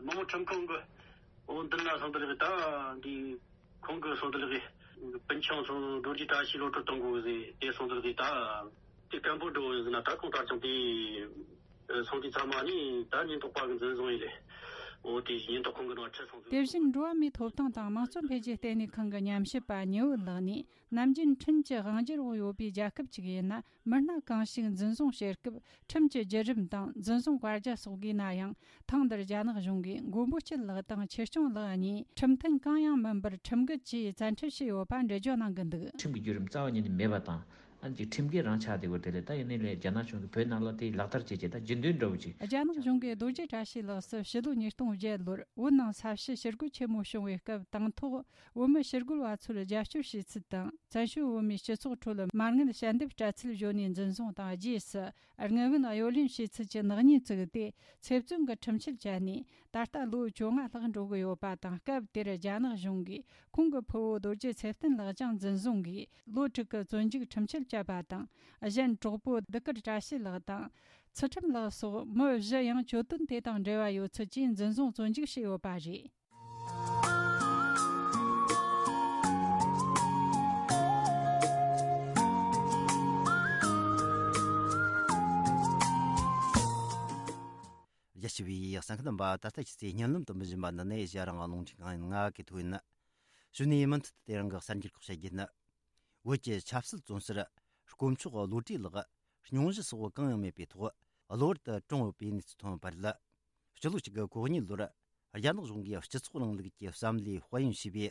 མི་དམངས་ཁྲིམས་ཁང་གི་འོ་མདུན་ལ་སོང་དུ་ལགས་ད་འདི་ཁོང་གི་སོང་དུ་ལགས་སྤུན་ཆུང་ཚོ་རྡོ་རྗེ་བཀྲ་ཤིས་གློད་གྲོལ་གཏོང་དགོས་ཟེར་དེ་སོང་དུ་ལགས་ད་དེ་སྐད་འབོད་འགྲོ་ཟེར་ན་ད་ཁོང་ད་ཅང་དེ། སོང་དུས་ཚང་མ་ནི་ད་ཉེན་རྟོག་པ་གི་འཛིན་བཟུང་ཡིན་ལེ། འོ་དེ་ཉེན་རྟོག་ཁང་གི་ནང་ཁྲིད་སོང་ཚུལ། དེ་བཞིན་འགྲོ་བ་མིའི་ཐོབ་ཐང་དང་དམངས་གཙོ་འཕེལ་རྒྱས་ལྟེ་གནས་ཁང་གི་ཉམས་ཞིབ་པ་ཉི་འོད་ལགས་ནས། ནམ་རྒྱུན་ཁྲིམས་ཀྱི་དབང་སྒྱུར་འོག་ཡོད་པའི་རྒྱལ་ཁབ་ཅིག་ཡིན་ན། མི་སྣ་གང་ཞིག་འཛིན་བཟུང་བྱེད་སྐབས་ཁྲིམས་ཀྱི་བརྒྱུད་རིམ་དང་འཛིན་བཟུང་བཀའ་རྒྱ་སོགས་དགོས་ན་ཡང་། ཐེངས་འདིར་རྒྱ་ནག་གཞུང་གིས་མགོན་པོ་སྐྱིད་ལགས་དང་ཆོས་སྐྱོང་ལགས་གཉིས་ཁྲིམས་མཐུན་གང་ཡང་མིན་པར་ཁྲིམས་འགལ་གྱིས་བཙན་ཁྲིད་བྱས་ཡོད་པ་འགྲེལ་བརྗོད་གནང་གི་འདུག་ཁྲིམས་ཀྱི་བརྒྱུད་རིམ་རྩ་བ་ཉིད་ནས་མེད་པ་དང་། ཨ་ནི་ཅིག་ཁྲིམས་འགལ་རང་ཆགས་བསྡད་ཡོད་དེ་ལས། ད་ཡིན་ནའི་ལས་རྒྱ་ནག་གཞུང་གིས་བོད་ནང་ལ་དེ་ལག་བསྟར་བྱེད་ཀྱི་ད་རྒྱུན་ལྡན་འདྲ་བོ་ཅིག་རྒྱ་ནག་གཞུང་གིས་རྡོ་རྗེ་བཀྲ་ཤིས་ལགས་སུ་ཕྱི་ལོ་ཉིས་སྟོང་བརྒྱད་ལོར་བོད་ནང་ས་བྱི་ཞི་རྒོལ་ཆེན་མོ་བྱུང་བའི་སྐབས། དང་ཐོག་བོད་མི་ཞི་རྒོལ་བ་ཚོར་རྒྱབ་སྐྱོར་བྱས་ཚུལ་དང་། བཙན་བྱོལ་བོད་མིའི་སྤྱི་ཚོགས་ཁྲོད་མ་དངུལ་ཞལ་འདེབས་སྤྲད་ཚུལ་བརྗོད་ནས་འཛིན་བཟུང་དང་། རྗེས་སུ་དངུལ་བུན་གཡོ་ལེན་བྱས་ཚུལ་གྱི་ནག་ཉེས་བཙུགས་ཏེ། ཚེ་བཙོན་གྱི་ཁྲིམས་ཆད་བཅད་ནས། ད་ལྟ་ལོ་བཅོ་ལྔ་ལྷག་འགྲོ་གི་ཡོད་པ་དང་། སྐབས་དེར་རྒྱ་ནག་གཞུང་གིས་ཁོང་གི་ཕུ་བོ་རྡོ་རྗེ་ཚེ་བརྟན་ལགས་ཀྱང་འཛིན་བཟུང་གིས། ལོ་དྲུག་གི་བཙོན་འཇུག་ཁྲིམས་ཆད་བཅད་པ་དང་། གཞན་གྲོགས་པོ་ལྡུག་དཀར་བཀྲ་ཤིས་ལགས་དང་། ཚུལ་ཁྲིམས་ལགས་སོགས་མི་བཞི་ཡང་གྱོད་དོན་དེ་དང་འབྲེལ་བ་ཡོད་ཚུལ་གྱིས་འཛིན་བཟུང་བཙོན་འཇུག་བྱས་ཡོད་པ་རེད། རྒྱ་ཆེ་བའི་གསན་མཁན་རྣམ་པ། ད་ལྟ་ཁྱེད་ཚོས་སྙན་ལམ་དུ་མི་བཞིན་པ་འདི་ནས་ཨེ་ཤེ་ཡ་རང་དབང་རླུང་འཕྲིན་ཁང་ཡིན། ང་གི་ཐོ་ཡིན། གཞུག་ནས་མུ་མཐུད་དུ་དེ་རིང་གི་གསར་འགྱུར་ཁག་བཤད་རྒྱུ་ནི། བོད་ཀྱི་ཆབ་སྲིད་བཙོན་ཟུར་དཀོན་མཆོག་བློ་གྲོས་ལགས་སྙུང་གཞི་སོགས་གང་ཡང་མེད་པའི་ཐོག་གློ་བུར་དུ་གྲོངས་ཡོད་པའི་གནས་ཚུལ་ཐོན་པ་རེད། སྤྱི་ལོ་གཅིག་དགུ་གོ་གཉིས་ལོར་རྒྱ་ནག་གཞུང་གིས་སྤྱི་ཚོགས་རིང་ལུགས་ཀྱི་བསམ་བློའི་དཔལ་ཡོན་ཞེས་པའི་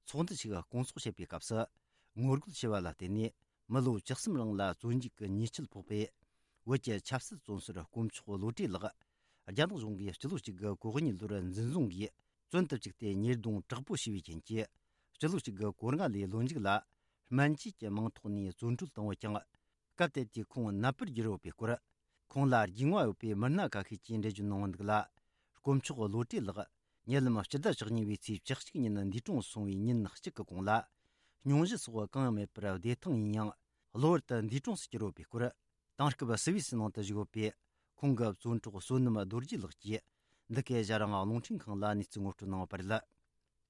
ཚོགས་འདུ་ཞིག་སྐོང་ཚོགས་བྱེད་པའི་སྐབས་སུ། ངོ་རྒོལ་བྱས་པ་ལ་བརྟེན་ནས་མི་ལོ་བཅུ་གསུམ་རིང་ལ་བཙོན་འཇུག་གི་ཉེས་ཆད་ཕོག་པའི་བོད་ཀྱི་ཆབ་སྲིད་བཙོན་ཟུར་དཀོན་མཆོག་བློ་གྲོས་ལགས། རྒྱ་ནག་གཞུང་གིས་སྤྱི་ལོ་གཅིག་དགུ་གོ་གཉིས་ལོར་འཛིན་བཟུང་གིས་བཙོན་དུ་བཅུག་སྟེ་ཉེས་རྡུང་དྲག་པོ་བྱས་པའི་རྐྱེན་གྱིས། སྤྱི་ལོ་གཅིག་དགུ་གོ་ལྔ་ལོའི་ལོ་མཇུག་ལ་སྨན་བཅོས་ཀྱི་མིང་ཐོག་ནས་བཙོན་གྲོལ་བཏང་ཡོད་ཀྱང་། སྐབས་དེ་དུས་ཁོང་ནད་པར་གྱུར་ཡོད་པའི་སྐོར། ཁོང་ལ་རྒྱུས་མངའ་ཡོད་པའི་མི་སྣ་ཁ་ཤས་ཀྱིས་འགྲེལ་བརྗོད་གནང་བ་འདུག་ལ། དཀོན་མཆོག་བློ་གྲོས་ལགས་ཉེ་ལམ་སྤྱི་ཟླ་བཅུ་གཉིས་པའི་ཚེས་བཅུ་གཅིག་ཉིན་འདས་གྲོངས་སོང་བའི་ཉིན་གཅིག་གི་གོང་ལ། སྙུང་གཞི་སོགས་གང་ཡང་མེད་པར་བདེ་ཐང་ཡིན་ཡང་གློ་བུར་དུ་འདས་གྲོངས་སུ་གྱུར་ཡོད་པའི་སྐོར། དེང་སྐབས་སུད་སི་ནང་དུ་བཞུགས་ཡོད་པའི་ཁོང་གི་བཙོན་གྲོགས་བསོད་ནམས་རྡོ་རྗེ་ལགས་ཀྱིས་འདི་གའི་ཨེ་ཤ་ཡ་རང་དབང་རླུང་འཕྲིན་ཁང་ལ་གནས་ཚུལ་ངོ་སྤྲོད་གནང་བ་རེད།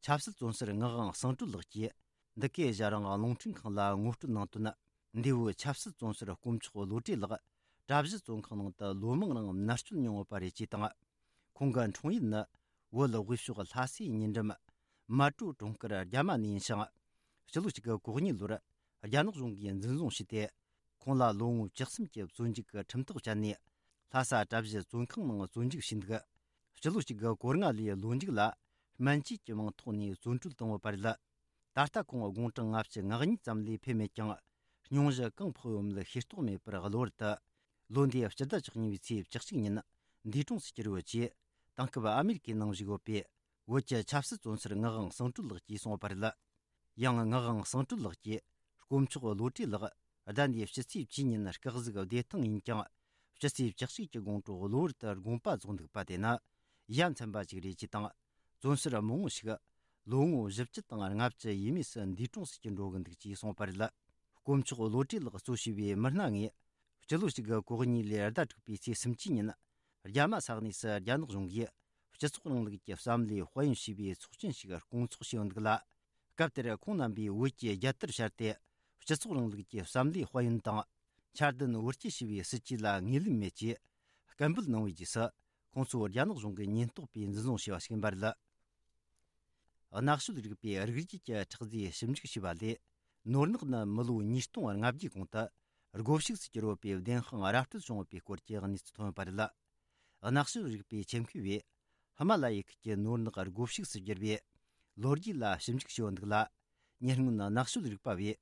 ཆབ་སྲིད་བཙོན་ཟུར་ངག་དབང་གསང་གྲུབ་ལགས་ཀྱིས་འདི་གའི་ཨེ་ཤ་ཡ་རང་དབང་རླུང་འཕྲིན་ཁང་ལ་ངོ་སྤྲོད་གནང་དོན། འདས་པོའི་ཆབ་སྲིད་བཙོན་ཟུར་དཀོན་མཆོག་བློ་གྲོས་ལགས་གྲྭ་བཞི་བཙོན་ཁང་ནང་དུ་ལོ་མང་རིང་མནར་གཅོད་མྱོང་ཡོད་པ་རེད་ཅེས་དང་། ཁོང་གི་འཁྲུངས་ཡུལ་ནི་བོད་དབུས་ཕྱོགས་ལྷ་སའི་ཉེ་འགྲམ་མལ་གྲོ་གྲོང་ཁྱེར་རྒྱ་མ་ནས་ཡིན་ཞིང་། ཕྱི་ལོ་གཅིག་དགུ་གོ་གཉིས་ལོར་རྒྱ་ནག་གཞུང་གིས་འཛིན་བཟུང་བྱས་ཏེ། ཁོང་ལ་ལོ་ངོ་བཅུ་གསུམ་གྱི་བཙོན་འཇུག་གི་ཁྲིམས་ཐག་བཅད་ནས་ལྷ་ས་གྲྭ་བཞི་བཙོན་ཁང་ནང་བཙོན་འཇུག་བྱས་འདུག་ཕྱི་ལོ་གཅིག་དགུ་གོ་ལྔ་ལོའི་ལོ་མཇུག་ལ་སྨན་བཅོས་ཀྱི་མིང་ཐོག་ནས་བཙོན་གྲོལ་བཏང་ཡོད་པ་རེད། ད་ལྟ་ཁོང་དགུང་གྲངས་ལྔ་བཅུ་ང་གཉིས་ཙམ་ལས་ཕེབས་མེད་ཀྱང་། སྙུང་གཞི་གང་ཕོག་ཡོད་མེད་ཤེས་རྟོགས་མེད་པར་གློ་བུར་དུ་ལོ་འདིའི་སྤྱི་ཟླ་བཅུ་གཉིས་པའི་ཚེས་བཅུ་གཅིག་ཉིན་འདས་གྲོངས་སུ་གྱུར་ཡོད་ཅེས། དེང་སྐབས་ཨ་མེ་རི་ཀའི་ནང་བཞུགས་ཡོད་པའི་བོད་ཀྱི་ཆབ་སྲིད་བཙོན་ཟུར་ངག་དབང་གསང་གྲུབ་ལགས་ཀྱིས་གསུངས་པ་རེད། ཡང་ངག་དབང་གསང་གྲུབ་ལགས་ཀྱིས་དཀོན་མཆོག་བློ་གྲོས་ལགས་ཟླ་འདིའི་ཕྱི་ཚེས་བཅུ་ཉིན་སྐུ་གཟུགས་བདེ་ཐང་ཡིན་ཀྱང་། ཕྱི་ཚེས་བཅུ་གཅིག་གི་དགོང་དྲོ་གློ་བུར་དུ་དགོངས་པ་རྫོགས་འདུག་པ་དེ་ནི་ཡ་མཚན་པ་ཞིག་རེད་ཅེས་དང་། བཙོན་ཟུར་མང་བོ་ཞིག་ལོ་ངོ་བཞི་བཅུ་དང་ལྔ་བཅུ་ཡས་མས་སུ་འདས་གྲོངས་སུ་གྱུར་འགྲོ་གི་འདུག་ཅེས་གསུངས་པ་རེད། དཀོན་མཆོག་བློ་གྲོས་ལགས་གཙོ་བྱས་པའི་མི་སྣ་ལྔས་སྤྱི་ལོ་གཅིག་དགུ་གོ་གཉིས་ལོའི་ཟླ་དྲུག་པའི་ཚེས་སུམ་ཅུ་ཉིན་རྒྱ་མ་ས་གནས་སུ་རྒྱ་ནག་གཞུང་གིས་སྤྱི་ཚོགས་རིང་ལུགས་ཀྱི་བསམ་བློའི་དཔལ་ཡོན་ཞེས་པའི་ཚོགས་ཆེན་ཞིག་སྐོང་ཚོགས་བྱས་ཡོད་འདུག་ལ། སྐབས་དེར་ཁོང་རྣམ་པས་བོད་ཀྱི་རྒྱལ་དར་ཕྱར་ཏེ་སྤྱི་ཚོགས་རིང་ལུགས་ཀྱི་བསམ་བློའི་དཔལ་ཡོན་དང་། འཆར་ལྡན་བོད་སྐྱིད་ཞེས་པའི་སྲིད་ཇུས་ལ་ངོས་ལེན་མེད་ཅེས་སྐད་འབོད་གནང་བའི་རྗེས་སུ། ཁོང་ཚོ་རྒྱ་ནག་གཞུང་གིས་ཉེན་རྟོག་པས་འཛིན་བཟུང་བྱས་པ་ཞིག་ཡིན་པ་རེད། ནག་ཤོད་རིག་པའི་རིགས་རྒྱུད་ཀྱི་ཁྲག་རྫས་ཞིབ་འཇུག་བྱས་པ་ལས། ནོར་ནག་ནི་མི་ལོ་ཉིས་སྟོང་ལྔ་བརྒྱའི་གོང་དུ་སྒོ་ཕྱུགས་སུ་གྱུར་ཡོད་པའི་བདེན་དཔང་ར་སྤྲོད་བྱུང་ཡོད་པའི་སྐོར་གྱི་གནས་ཚུལ་ཐོན་ཡོད་པ་རེད། ནག་ཤོད་རིག་པའི་ཆེད་མཁས་པས་ཧི་མ་ལ་ཡའི་ཁུལ་གྱི་ནོར་ནག་སྒོ་ཕྱུགས་སུ་གྱུར་པའི་ལོ་རྒྱུས་ལ་ཞིབ་འཇུག་བྱས་ཡོད་འདུག་ལ། ཉེ་སྔོན་ནག་ཤོད་རིག་པ་བས་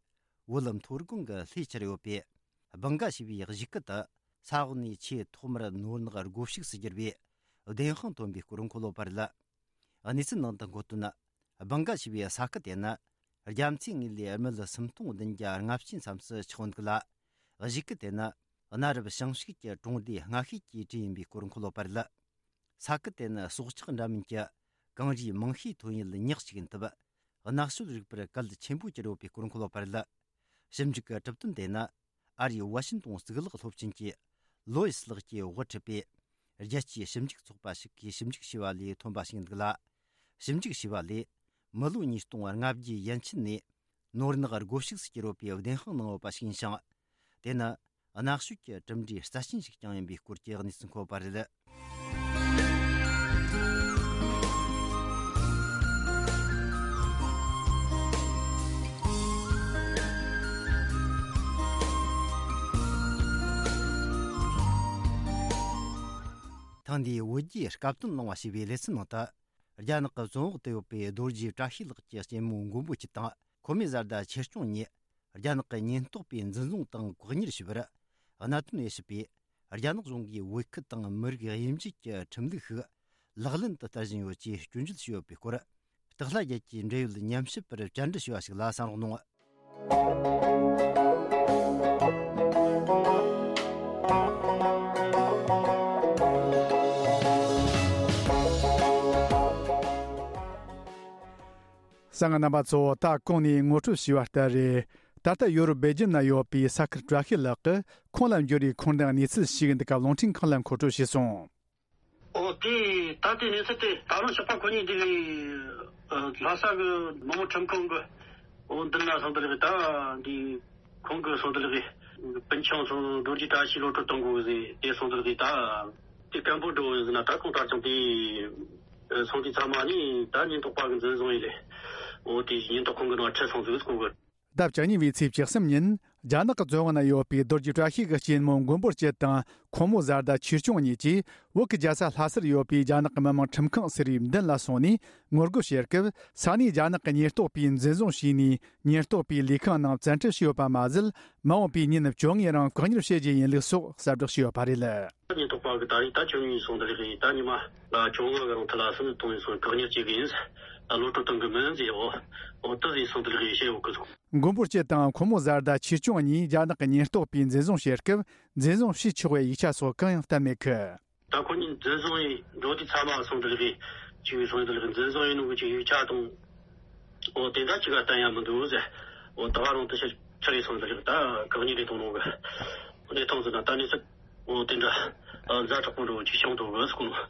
བོད་མཐོ་སྒང་གི་ལྷོའི་ཁྱེར་ཡོད་པའི་སྦང་ག་ཞེས་པའི་གཞིས་ཁུལ་དུ་ས་འོག་ནས་ཆེས་ཐོག་མར་ནོར་ནག་སྒོ་ཕྱུགས་སུ་གྱུར་པའི་བདེན་དཔང་ཐོན་པའི་སྐོར་འཁོད་ཡོད་པ་རེད། གནས་ཚུལ་ནང་དུ་འཁོད་དོན། སྦང་ག་ཞེས་པའི་ས་ཁུལ་དེ་ནི་རྒྱ་མཚོའི་ངོས་ལས་རྨིད་སུམ་སྟོང་བདུན་བརྒྱ་ལྔ་བཅུ་མཚམས་སུ་ཆགས་ཡོད་འདུག་ལ། གཞིས་ཁུལ་དེ་ནི་གནའ་རབས་ཞིང་ཕྱུགས་ཀྱི་གྲོང་སྡེ་སྔ་ཤོས་ཀྱི་གྲས་ཡིན་པའི་སྐོར་འཁོད་ཡོད་པ་རེད། ས་ཁུལ་དེ་ནི་སྲོག་ཆགས་འདྲ་མིན་གྱི་གངས་རིའི་མིང་ཤས་ཐོན་ཡུལ་ཉག་གཅིག་ཡིན་སྟབས། ནག་ཤོད་རིག་པར་གལ་ཆེན་པོ་གྱུར་ཡོད་པའི་སྐོར་འཁོད་ཡོད་པ་རེད། ཞིབ་འཇུག་གི་གྲུབ་དོན་དེ་ནི་ཨ་རིའི་ཝ་ཤིན་ཏོན་གཙུག་ལག་སློབ་ཆེན་གྱི་ལོ་ཡིས་ལགས་ཀྱིས་དབུ་ཁྲིད་པའི་རྒྱལ་སྤྱིའི་ཞིབ་འཇུག་ཚོགས་པ་ཞིག་གིས་ཞིབ་འཇུག་བྱས་པ་ལས་ཐོན་པ་ཞིག་ཡིན་འདུག་ལ། ཞིབ་འཇུག་བྱས་པ་ལས་མི་ལོ་ཉིས་སྟོང་ལྔ་བརྒྱའི་ཡན་ཆད་ནས་ནོར་ནག་སྒོ་ཕྱུགས་སུ་གྱུར་ཡོད་པའི་བདེན་དཔང་གནང་ཡོད་པ་ཞིག་ཡིན་ཞིང་། དེ་ནི་ནག་ཤོད་ཀྱི་གྲུབ་འབྲས་རྩ་ཆེན་ཞིག་ཀྱང་ཡིན་པའི་སྐོར་གྱི་གནས་ཚུལ་འཁོད་པ་རེད། ཐེངས་འདིའི་བོད་རྒྱའི་སྐབས་དོན་གླེང་བ་ཞེས་པའི་ལེ་ཚན་ནང་དུ། རྒྱ་ནག་གི་བཙོན་འོག་ཏུ་ཡོད་པའི་རྡོ་རྗེ་བཀྲ་ཤིས་ལགས་ཀྱི་གཅེན་མོ་མགོན་པོ་སྐྱིད་དང་། ཁོ་མོའི་བཟའ་ཟླ་ཆོས་སྐྱོང་གཉིས་རྒྱ་ནག་གི་ཉེན་རྟོག་པས་འཛིན་བཟུང་དང་བཀག་ཉར་བྱས་པར། གནད་དོན་དབྱེ་ཞིབ་པས་རྒྱ་ནག་གཞུང་གིས་བོད་ཁུལ་དང་མི་རིགས་དབྱེ་འབྱེད་ཀྱི་ཁྲིམས་ལུགས་ཤིག་ལག་ལེན་དུ་བསྟར་བཞིན་ཡོད་ཅེས་སྐྱོན་བརྗོད་བྱས་ཡོད་པའི་སྐོར། སྟག་ལྷ་རྒྱལ་གྱིས་འབྲེལ་ཡོད་ཉམས་ཞིབ་པར་བཅར་འདྲི་ཞུས་པ་ཞིག་ལ་གསན་རོགས་གནང་། གསན་མཁན་རྣམ་པ་ཚོ། ད་གོང་ནས་ངོ་སྤྲོད་བྱས་པ་ལྟར་རེད། ད་ལྟ་ཡོ་རོབ་སྦེལ་ཇམ་ན་ཡོད་པའི་ས་ཁུལ་བཀྲ་ཤིས་ལགས་ཀྱིས་ཁོང་ལ་འབྱོར་བའི་འཁོར་འདས་གནས་ཚུལ་ཞིག་འདི་ག་རླུང་འཕྲིན་ཁང་ལ་མཁོ་སྤྲོད་བྱས་སོང་། ཨོ་དེ་ད་ལྟའི་གནས་ཚུལ་དེ་ད་རུང་ཞོགས་པ་ཁོ་གཉིས་འདི་ལས་ལྷ་ས་གི་མི་དམངས་ཁྲིམས་ཁང་གི་འོ་འདི་ན་སོང་དེ་ལས་ད་འདི་ཁོང་གི་སོང་དེ་ལས་སྤུན་ཆུང་ཚོ་རྡོ་རྗེ་བཀྲ་ཤིས་གློད་གྲོལ་གཏོང་དགོས་ཟེར་དེ་སོང་དེ་ལས་ད་དེ་སྐད་འབོད་འགྲོ་ཟེར་ན་ད་ཁོང་ད་ཅང་དེ་སོང་དེ་ཚང་མ་ནི་ད་ཉེན་རྟོག་པ་གི་འཛིན་བཟུང་ཡིན་ལས། འོ་དེ་ཉེན་རྟོག་ཁང་གི་ནང་ཁྲིད་སོང་ཟིག་ཁོང་གི། ཟླ་བཅུ་གཉིས་པའི་ཚེས་བཅུ་གསུམ་ཉིན་རྒྱ་ནག་གི་བཙོན་འོག་ན་ཡོད་པའི་རྡོ་རྗེ་བཀྲ་ཤིས་ཀྱི་གཅེན་མོ་མགོན་པོ་སྐྱིད་དང་ཁོང་མོའི་བཟའ་ཟླ་ཆོས་སྐྱོང་གཉིས་ཀྱིས་བོད་ཀྱི་རྒྱལ་ས་ལྷ་སར་ཡོད་པའི་རྒྱ་ནག་གི་མི་དམངས་ཁྲིམས་ཁང་ཟེར་བའི་མདུན་ལ་སོང་ནས་ངོ་རྒོལ་བྱེད་སྐབས། ས་གནས་རྒྱ་ནག་གི་ཉེན་རྟོག་པས་འཛིན་བཟུང་བྱས་ནས་ཉེན་རྟོག་པའི་ལས་ཁང་ནང་བཙན་ཁྲིད་བྱས་ཡོད་པ་མ་ཟད། མ་འོངས་པའི་ཉིན་བཅོ་ལྔའི་རིང་བཀག་ཉར་བྱེད་རྒྱུ་ཡིན་ལུགས་སོགས་གསལ་བསྒྲགས་བྱས་ཡོད་པ་རེད། ཉེན་རྟོག་པ་གི་ད་རེས་ད་བཅུ་གཉིས་སོང་དེ་ལས་ད་ཉི་མ་ལ་བཅོ་ལྔ་གི་རིང་ཐི་ལ་སུམ་གཏོང་ཡིན་སོང་བཀག་ཉར་བྱེད་གི་ཡིན། གློད་གྲོལ་གཏོང་གི་མིན་ཟེར། འོ་འོ་དེ་ཟེར་སོང་། དེ་ལ་ཡི་བཤད་ཡོད་གི་སོང་། མགོན་པོ་སྐྱིད་དང་ཁོ་མོ་བཟའ་ཟླ་ཆོས་སྐྱོང་གཉིས་རྒྱ་ནག་གི་ཉེན་རྟོག་པས་འཛིན་བཟུང་བྱེད་སྐབས་འཛིན་བཟུང་བྱས་ཆོག་པའི་ཡིག་ཆ་སོགས་གང་ཡང་བསྟན་མེད་གི། ད་ཁོ་གཉིས་འཛིན་བཟུང་ཡིན་འགྲོ་དུས་ཚང་མ་སོང་། དེ་ལ་ཡི་ཅིག་སོང་། དེ་ལ་ཡི་འཛིན་བཟུང་ཡིན་ནོ་གི་ཅིག་ཡིག་ཆ་དང་འོ་དེ་འདྲ་ཅིག་ག་བསྟན་ཡ་མི་འདུག་ཟེར། འོ་ད་བར་རུང་དེ་ཕྱིར་ཁྲིད་རེ་སོང་། དེ་ལ་ཡི་ད་བཀག་ཉར་རེ་གཏོང་ནོ་གི་གནས་སྟངས་ཟེར་ན། ད་གནས་ཚུལ་འོ་དེ་འདྲ་ཛ་དྲག་པོ་འདྲ་བོ་ཅིག་བྱུང་འདུག་གི་ཟེར་གོ་ནོ།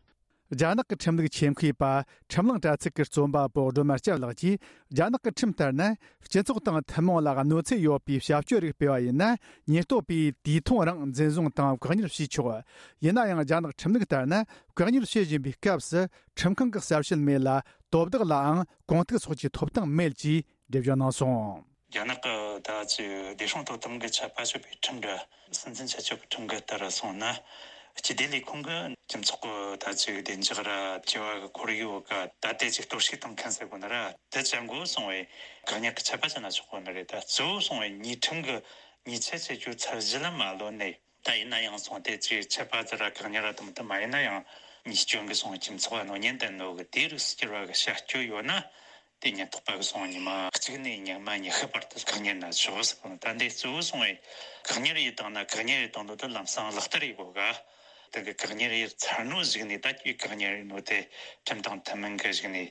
རྒྱ་ནག་གི་ཁྲིམས་ལུགས་ཆེད་མཁས་པ་ཁྲིམས་གླིང་དྲ་ཚིགས་ཀྱི་རྩོམ་པ་པོ་སྒྲོལ་མ་སྐྱབས་ལགས་ཀྱིས། རྒྱ་ནག་གི་ཁྲིམས་ལྟར་ན། སྤྱི་ཚོགས་དང་ཐུན་མོང་ལ་གནོད་འཚེ་ཡོད་པའི་བྱ་སྤྱོད་རིགས་སྤེལ་བ་ཡིན་ན། ཉེན་རྟོག་པས་དུས་ཐུང་རིང་འཛིན་བཟུང་དང་བཀག་ཉར་བྱས་ཆོག་ཡིན་ན་ཡང་། རྒྱ་ནག་ཁྲིམས་ལུགས་ལྟར་ན། བཀག་ཉར་བྱེད་བཞིན་པའི་སྐབས་སུ་ཁྲིམས་ཁང་གི་གསལ་བཤད་མེད་ལ། དོ་བདག་ལའང་གོང་ཐུག་སོགས་ཀྱི་ཐོབ་ཐང་མེད་ཅེས་འགྲེལ་བརྗོད་གནང་སོང་། རྒྱ་ནག་གི་ད་ཅིག་བདེ་སྲུང་དོ་དམ་གྱི་ཆད་པ་གཅོད་པའི་ཁྲིམས་འདྲ། སྲིད་འཛིན་ཆད་གཅོད་ཀྱི་ཁྲིམས་འགལ་ལྟར་སོང་ན། སྤྱི་བདེ་ལས་ཁུངས་ཀྱིས་སྤྱི་ཚོགས་ཀྱི་ད་ཅིག་བདེ་འཇགས་ར་བྱ་བ་གི་ཁོར་ཡུག་ག་ད་ལྟའི་ཅིག་གཏོར་བཤིག་གཏོང་མཁན་ཟེར་དགོས་ན་ར། དེ་ཅན་གོ་སོང་བས་བཀག་ཉར་གྱི་ཆད་པ་བཅད་ན་ཆོག་གོ་ནི་རེད། ད་གཙོ་བོ་སོང་བས་ཉེས་ཁྲིམས་ཀྱི་ཉེས་ཆད་བཅད་རྒྱུ་ཚར་གཞི་ལ་མ་ལོན་ནས། ད་ཡིན་ན་ཡང་སོང་དེ་ཅིག་ཆད་པ་ཟེར་ར་བཀག་ཉར་ར་དང་། དེ་མ་ཡིན་ན་ཡང་ཉེས་སྐྱོན་གྱི་སོང་སྤྱི་ཚོགས་གནོད་ཉེན་ལྡན་ནོ་གི་དེ་རིགས་སུ་གྱུར་བ་གི་བྱ་སྤྱོད་ཡོད་ན། དེ་ཉེན་རྟོག་པ་གི་སོང་ཉི་མ་གཅིག་ནས་ཉི་མ་ཉི་ཤུ་བར་དུ་བཀག་ཉར་ན་ཆོག་ཟེར་གོ་ནོ། ད་འདི་གཙོ་བོ་སོང་བས་བཀག་ཉར་ཡེ་བཏང་ན། བཀག་ཉར་ཡེ་བཏང་དུས་དེ་ལམ་སང་ལག་བསྟར་ཡེ་དགོས་ག་དེ་གི་བཀག་ཉར་ཡེ་ཚར་ནོ་གཞུག་ནས། ད་ཁྱོད་བཀག་ཉར་ཡེ་ནོ་དེ་ཁྲིམས་དང་མཐུན་མིན་གི་གཞུག་ནས་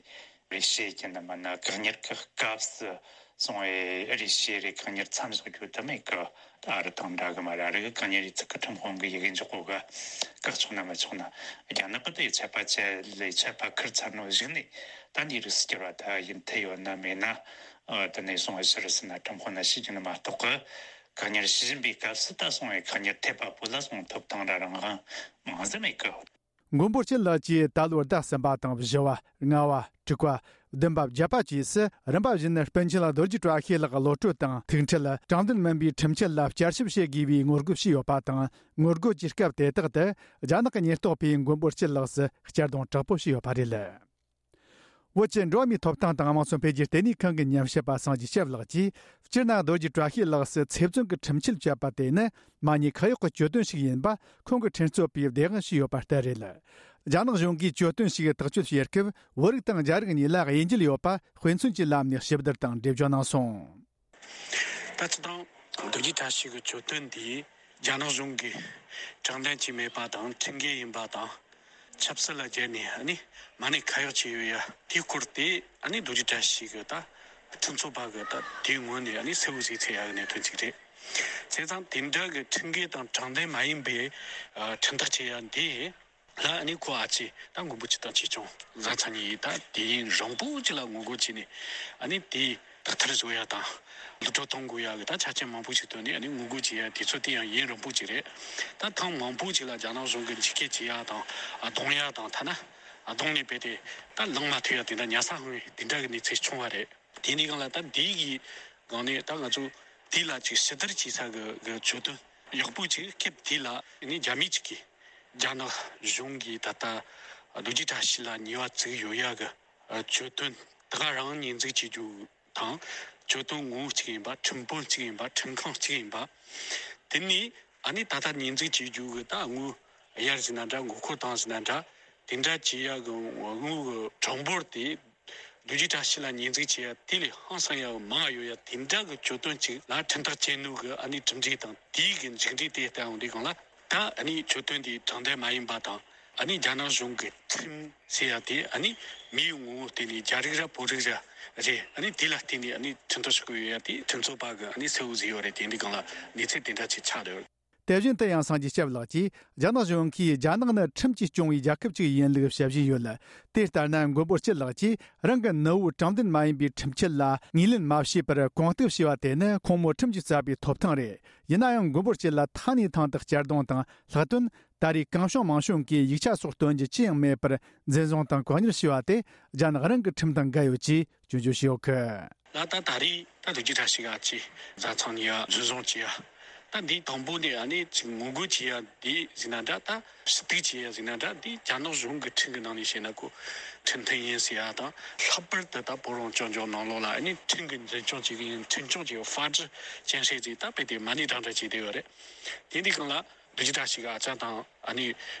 རེ་ཞུ་ཡེ་རྒྱུ་ནི་མིན་ན། བཀག་ཉར་གི་སྐབས་སུ་སོང་བས་རེ་ཞུ་རེ་བཀག་ཉར་མཚམས་འཇོག་རྒྱུ་དེ་མེད་གི། ད་ཨ་རི་དང་འདྲ་གི་མ་རེད། ཨ་རི་གི་བཀག་ཉར་ཡེ་ཚིག་གི་ཁྲིམས་དཔོན་གི་ཡི་གེ་འཇོག་གོ་ག་བཀག་ཆོག་ན་མི་ཆོག་ན། རྒྱ་ནག་གི་དེ་ཆད་པ་བཅད་ལས་ཆད་པ་ཁུར་ཚར་ནོ་གཞུག་ནས། ད་འདི་རིགས་སུ་གྱུར་བ་ད་ཡིན་ཐེ་ཡོད་ན་མེད་ན། ཨ་དེ་ནས་སོང་བ་ཕྱིར་ཟིན་ན་ཁྲིམས་དཔོན་ན་ཤེས་ཀྱི་ནི་མ་གཏོགས་གི། བཀག་ཉར་བྱེད་བཞིན་པའི་སྐབས་སུ་ད་སོང་བའི་བཀག་ཉར་ཐེབས་པ་པོ་ལ་སོང་ཐོབ་ཐང་ར་རང་དབང་མང་ཟིག་མེད་གི། མགོན་པོ་སྐྱིད་ལགས་ཀྱིས་ད་ལོའི་ཟླ་གསུམ་པ་དང་བཞི་བ། ལྔ་བ། དྲུག་པ། བདུན་པ། བརྒྱད་པ་བཅས་སུ་རིམ་པ་བཞིན་སྤུན་མཆེད་རྡོ་རྗེ་བཀྲ་ཤིས་ལགས་གློད་གྲོལ་དང་། ཐུག་འཕྲད། དྲང་བདེན་མིན་པའི་ཁྲིམས་ཆད་ལ་བསྐྱར་ཞིབ་བྱེད་དགོས་པའི་ངོ་རྒོལ་བྱས་ཡོད་པ་དང་། ངོ་རྒོལ་གྱི་སྐབས་དེ་དག་ཏུ་རྒྱ་ནག་གི་ཉེན་རྟོག་པས་མགོན་པོ་སྐྱིད་ལགས་སུ་གཅར་རྡུང་དྲག་པོ་བྱས་ཡོད་པ་རེད། བོད་ཀྱི་འགྲོ་བ་མིའི་ཐོབ་ཐང་དང་དམངས་སྲོལ་འཕེལ་རྒྱས་ལྟེ་གནས་ཁང་གི་ཉམས་ཞིབ་པ་སངས་རྒྱས་སྐྱབས་ལགས་ཀྱིས། སྤྱིར་ན་རྡོ་རྗེ་བཀྲ་ཤིས་ལགས་སུ་ཚེ་བཙོན་གྱི་ཁྲིམས་ཆད་བཅད་པ་དེ་ནི་མ་ཉེས་ཁ་གཡོག་གི་གྱོད་དོན་ཞིག་ཡིན་པ་ཁོང་གི་འཁྲུན་རྩོད་པས་བདེན་དཔང་བྱས་ཡོད་པ་ལྟར་རེད། རྒྱ་ནག་གཞུང་གིས་གྱོད་དོན་ཞིག་ཐག་གཅོད་བྱེད་སྐབས་བོད་རིགས་དང་རྒྱ་རིགས་གཉིས་ལ་དབྱེ་འབྱེད་ཡོད་པ་དཔེ་མཚོན་གྱི་ལམ་ནས་ཞིབ་བསྡུར་དང་འགྲེལ་བརྗོད་གནང་སོང་། ད་སྤྱིར་བཏང་རྡོ་རྗེ་བཀྲ་ཤིས་ཀྱི་གྱོད་དོན་འདི་རྒྱ་ནག་གཞུང་གིས་དྲང་བདེན་གྱིས་མེད་པ་དང་ཁྲིམས་འགལ་ཡིན་པ་དང་། ཆབ་སྲིད་ལ་སྦྱར་ནས་ཨ་ནི་མ་ཉེས་ཁ་གཡོག་བྱས་ཡོད་ཡ་དེའི་སྐོར་དེ་ཨ་ནི་རྡོ་རྗེ་བཀྲ་ཤིས་ཀྱི་ད་འཁྲུན་རྩོད་པ་གི་ད་དེའི་ངོས་ནས་ཨ་ནི་གསལ་བོ་ཟིག་ཚོར་ཡ་གི་གནད་དོན་ཅིག་རེད། བྱས་ཙང་དེ་འདྲ་གི་ཁྲིམས་འགལ་དང་དྲང་བདེན་མ་ཡིན་པའི་ཨ་ཁྲིམས་ཐག་བཅད་ཡ་འདི། ལ་ཨ་ནི་ཁོ་ཨ་ཅེ་ད་མགོན་པོ་སྐྱིད་དང་ཆོས་སྐྱོང་བཟའ་ཚང་གཉིས་ད་དུས་ཡུན་རིང་པོ་ཅིག་ལ་ངོ་རྒོལ་བྱས་ནས་ཨ་ནི་དེ་དག་ཐེར་བཟོ་ཡ་དང་། གློད་གྲོལ་གཏོང་དགོས་ཡ་གི་ད་ཆ་རྐྱེན་མང་པོ་ཞིག་བཏོན་ནས་ཨ་ནི་ངོ་རྒོལ་བྱེད་ཡ་དུས་ཚོད་དེ་ཡང་ཡུན་རིང་པོ་ཅིག་རེད། ད་ཐེངས་མང་པོ་ཅིག་ལ་རྒྱ་ནག་གཞུང་གིས་འཇིགས་སྐུལ་བྱེད་ཡ་དང་། རྡུང་ཡ་དང་། ཐ་ན་རྡུང་ནས་རྦད་དེ་ད་ལངས་མ་ཐུབ་ཡ་དེ་འདྲ་ཉལ་ས་ལྷུང་བའི་དེ་འདྲ་གི་གནས་ཚུལ་བྱུང་བ་རེད། དེ་འདྲའི་སྒང་ལ་ད་འདི་གི་སྒང་ནས་ད་ང་ཚོ་དེ་ལ་ཅིག་ཞིབ་བསྡུར་བྱེད་ས་གི་གི་གྱོད་དོན་ཡག་པོ་ཅིག་སྐབས་དེ་ལ་ནི་རྒྱ་མི་ཅིག་གིས་རྒྱ་ནག་གཞུང་གིས་ད་ལྟ་རྡོ་རྗེ་བཀྲ་ཤིས་ལ་ཉེས་པ་བཙུགས་ཡོད་ཡ་གི་གྱོད་དོན་དེ་ག་རང་ཉེས་འཛུགས་བྱེད་རྒྱུ་དང་། གྱོད་དོན་ངོ་བོ་གཅིག་ཡིན་པ། ཁྲིམས་དཔོན་གཅིག་ཡིན་པ། ཁྲིམས་ཁང་གཅིག་ཡིན་པ། དེ་ནས་ཨ་ནི་ད་ལྟ་ཉེས་འཛུགས་བྱེད་རྒྱུ་གི་ད་དངུལ་གཡར་ཟིན་ན་འདྲ། མགོ་སྐོར་བཏང་ཟིན་ན་འདྲ། དེ་འདྲ་བྱེད་ཡ་གི་དངུལ་གི་གྲངས་འབོར་དེ། རྡོ་རྗེ་བཀྲ་ཤིས་ལ་ཉེས་འཛུགས་བྱེད་ཡ་དེ་ལས་ཧང་སང་ཡ་མང་ཡོད་ཡ། དེ་འདྲ་གི་གྱོད་དོན་ཅིག་ལ་ཁྲིམས་ཐག་བཅད་ནོ་གི་ཨ་ནི་གྲུབ་འབྲས་དང་དེའི་གི་མཇུག་འབྲས་དེ་ལྟ་ཡོང་དུས་སྒང་ལ། ད་ཨ་ནི་གྱོད་དོན་དེ་དྲང་བདེན་མ་ཡིན་པ་དང་། ཨ་ནི་རྒྱ་ནག་གཞུང་གི་ཁྲིམས་ཟེར་ཡ་དེ་ཨ་ནི་མིའི་ངོ་བོ་བསྟན་ནས་རྒྱ་རིགས་ར་བོད་རིགས་ར་རེད། ཨ་ནི་དེ་ལ་བརྟེན་ནས་ཨ་ནི་ཁྲིམས་ཐག་གཅོད་ཀྱི་ཡོད་ཡ་དེ་ཁྲིམས་རྩོད་པ་གི་ཨ་ནི་གསལ་བོ་ཟིག་ཡོད་རེད། དེ་འདི་སྒང་ལ་གནས་ཚུལ་དེ་འདྲ་ཅིག་ཆགས་ཡོད། དེ་བཞིན་དུ་ཡང་སངས་རྒྱས་སྐྱབས་ལགས་ཀྱིས། རྒྱ་ནག་གཞུང་གིས་རྒྱ་ནག་ནི་ཁྲིམས་ཀྱིས་སྐྱོང་བའི་རྒྱལ་ཁབ་ཅིག་ཡིན་ལུགས་བཤད་བཞིན་ཡོད། དེ་ལྟར་ན་མགོན་པོ་སྐྱིད་ལགས་ཀྱིས་རང་གི་ནུ་བོས་དྲང་བདེན་མ་ཡིན་པའི་ཁྲིམས་ཆད་ལ་ངོས་ལེན་མ་བྱས་པར་གོང་གཏུག་བྱས་པ་དེ་ནི་ཁོང་མོ་ཁྲིམས་ཀྱིས་བསགས་པའི་ཐོབ་ཐང་རེད། ཡིན་ན་ཡང་མགོན་པོ་སྐྱིད་ལ་ཐེངས་ནས་ཐེངས་དུ་གཅར་རྡུང་དང་ལྷག་དོན། ད་རེས་གང་བྱུང་མང་བྱུང་གིས་ཡིག་ཆ་སོགས་སྟོན་རྒྱུ་ཅི་ཡང་མེད་པར་འཛིན་བཟུང་དང་བཀག་ཉར་བྱས་པ་དེ་རྒྱ་ནག་རང་གི་ཁྲིམས་དང་འགལ་ཡོད་ཅེས་སྐྱོན་བརྗོད་བྱས་ཡོད་གི། ལ་ད་ད་རེས་ད་རྡོ་རྗེ་བཀྲ་ཤིས་ཨ་ཅེ་བཟའ་ཚང་གཉིས་ཡ་འཛིན་བཟུང་བྱས་ཡ། ད་འདི་དང་པོ་ནས་ཨ་ནི་ཅིག་ངོ་རྒོལ་བྱས་ཡ་འདི་ཟིན་ན་འདྲ། ད་ཞུ་གཏུག་བྱས་ཡ་ཟིན་ན་འདྲ། འདི་རྒྱ་ནག་གཞུང་གི་ཁྲིམས་ཀྱི་ནང་ནས་བཤད་ན་ཁོ་ཁྲིམས་མཐུན་ཡིན་ཟེར་ཡ་དང་། ལྷག་པར་དུ་ད་བོད་རང་སྐྱོང་ལྗོངས་ནང་ལོགས་ལ་ཨ་ནི་ཁྲིམས་ཀྱི་འཛིན་སྐྱོང་བྱེད་ཀྱི་ཡིན། ཁྲིམས་སྐྱོང་བྱེད་པའི་法治建设ཟེར་ད་རྦད་དེ་མ་ཎི་བགྲང་བྲ་བྱས་བསྡད་ཡོད་རེད། དེ་འདི་སྒང་ལ། རྡོ་རྗེ་བཀྲ་ཤིས་ཀྱི་ཨ་ཅག་དང་ཨ་ནི་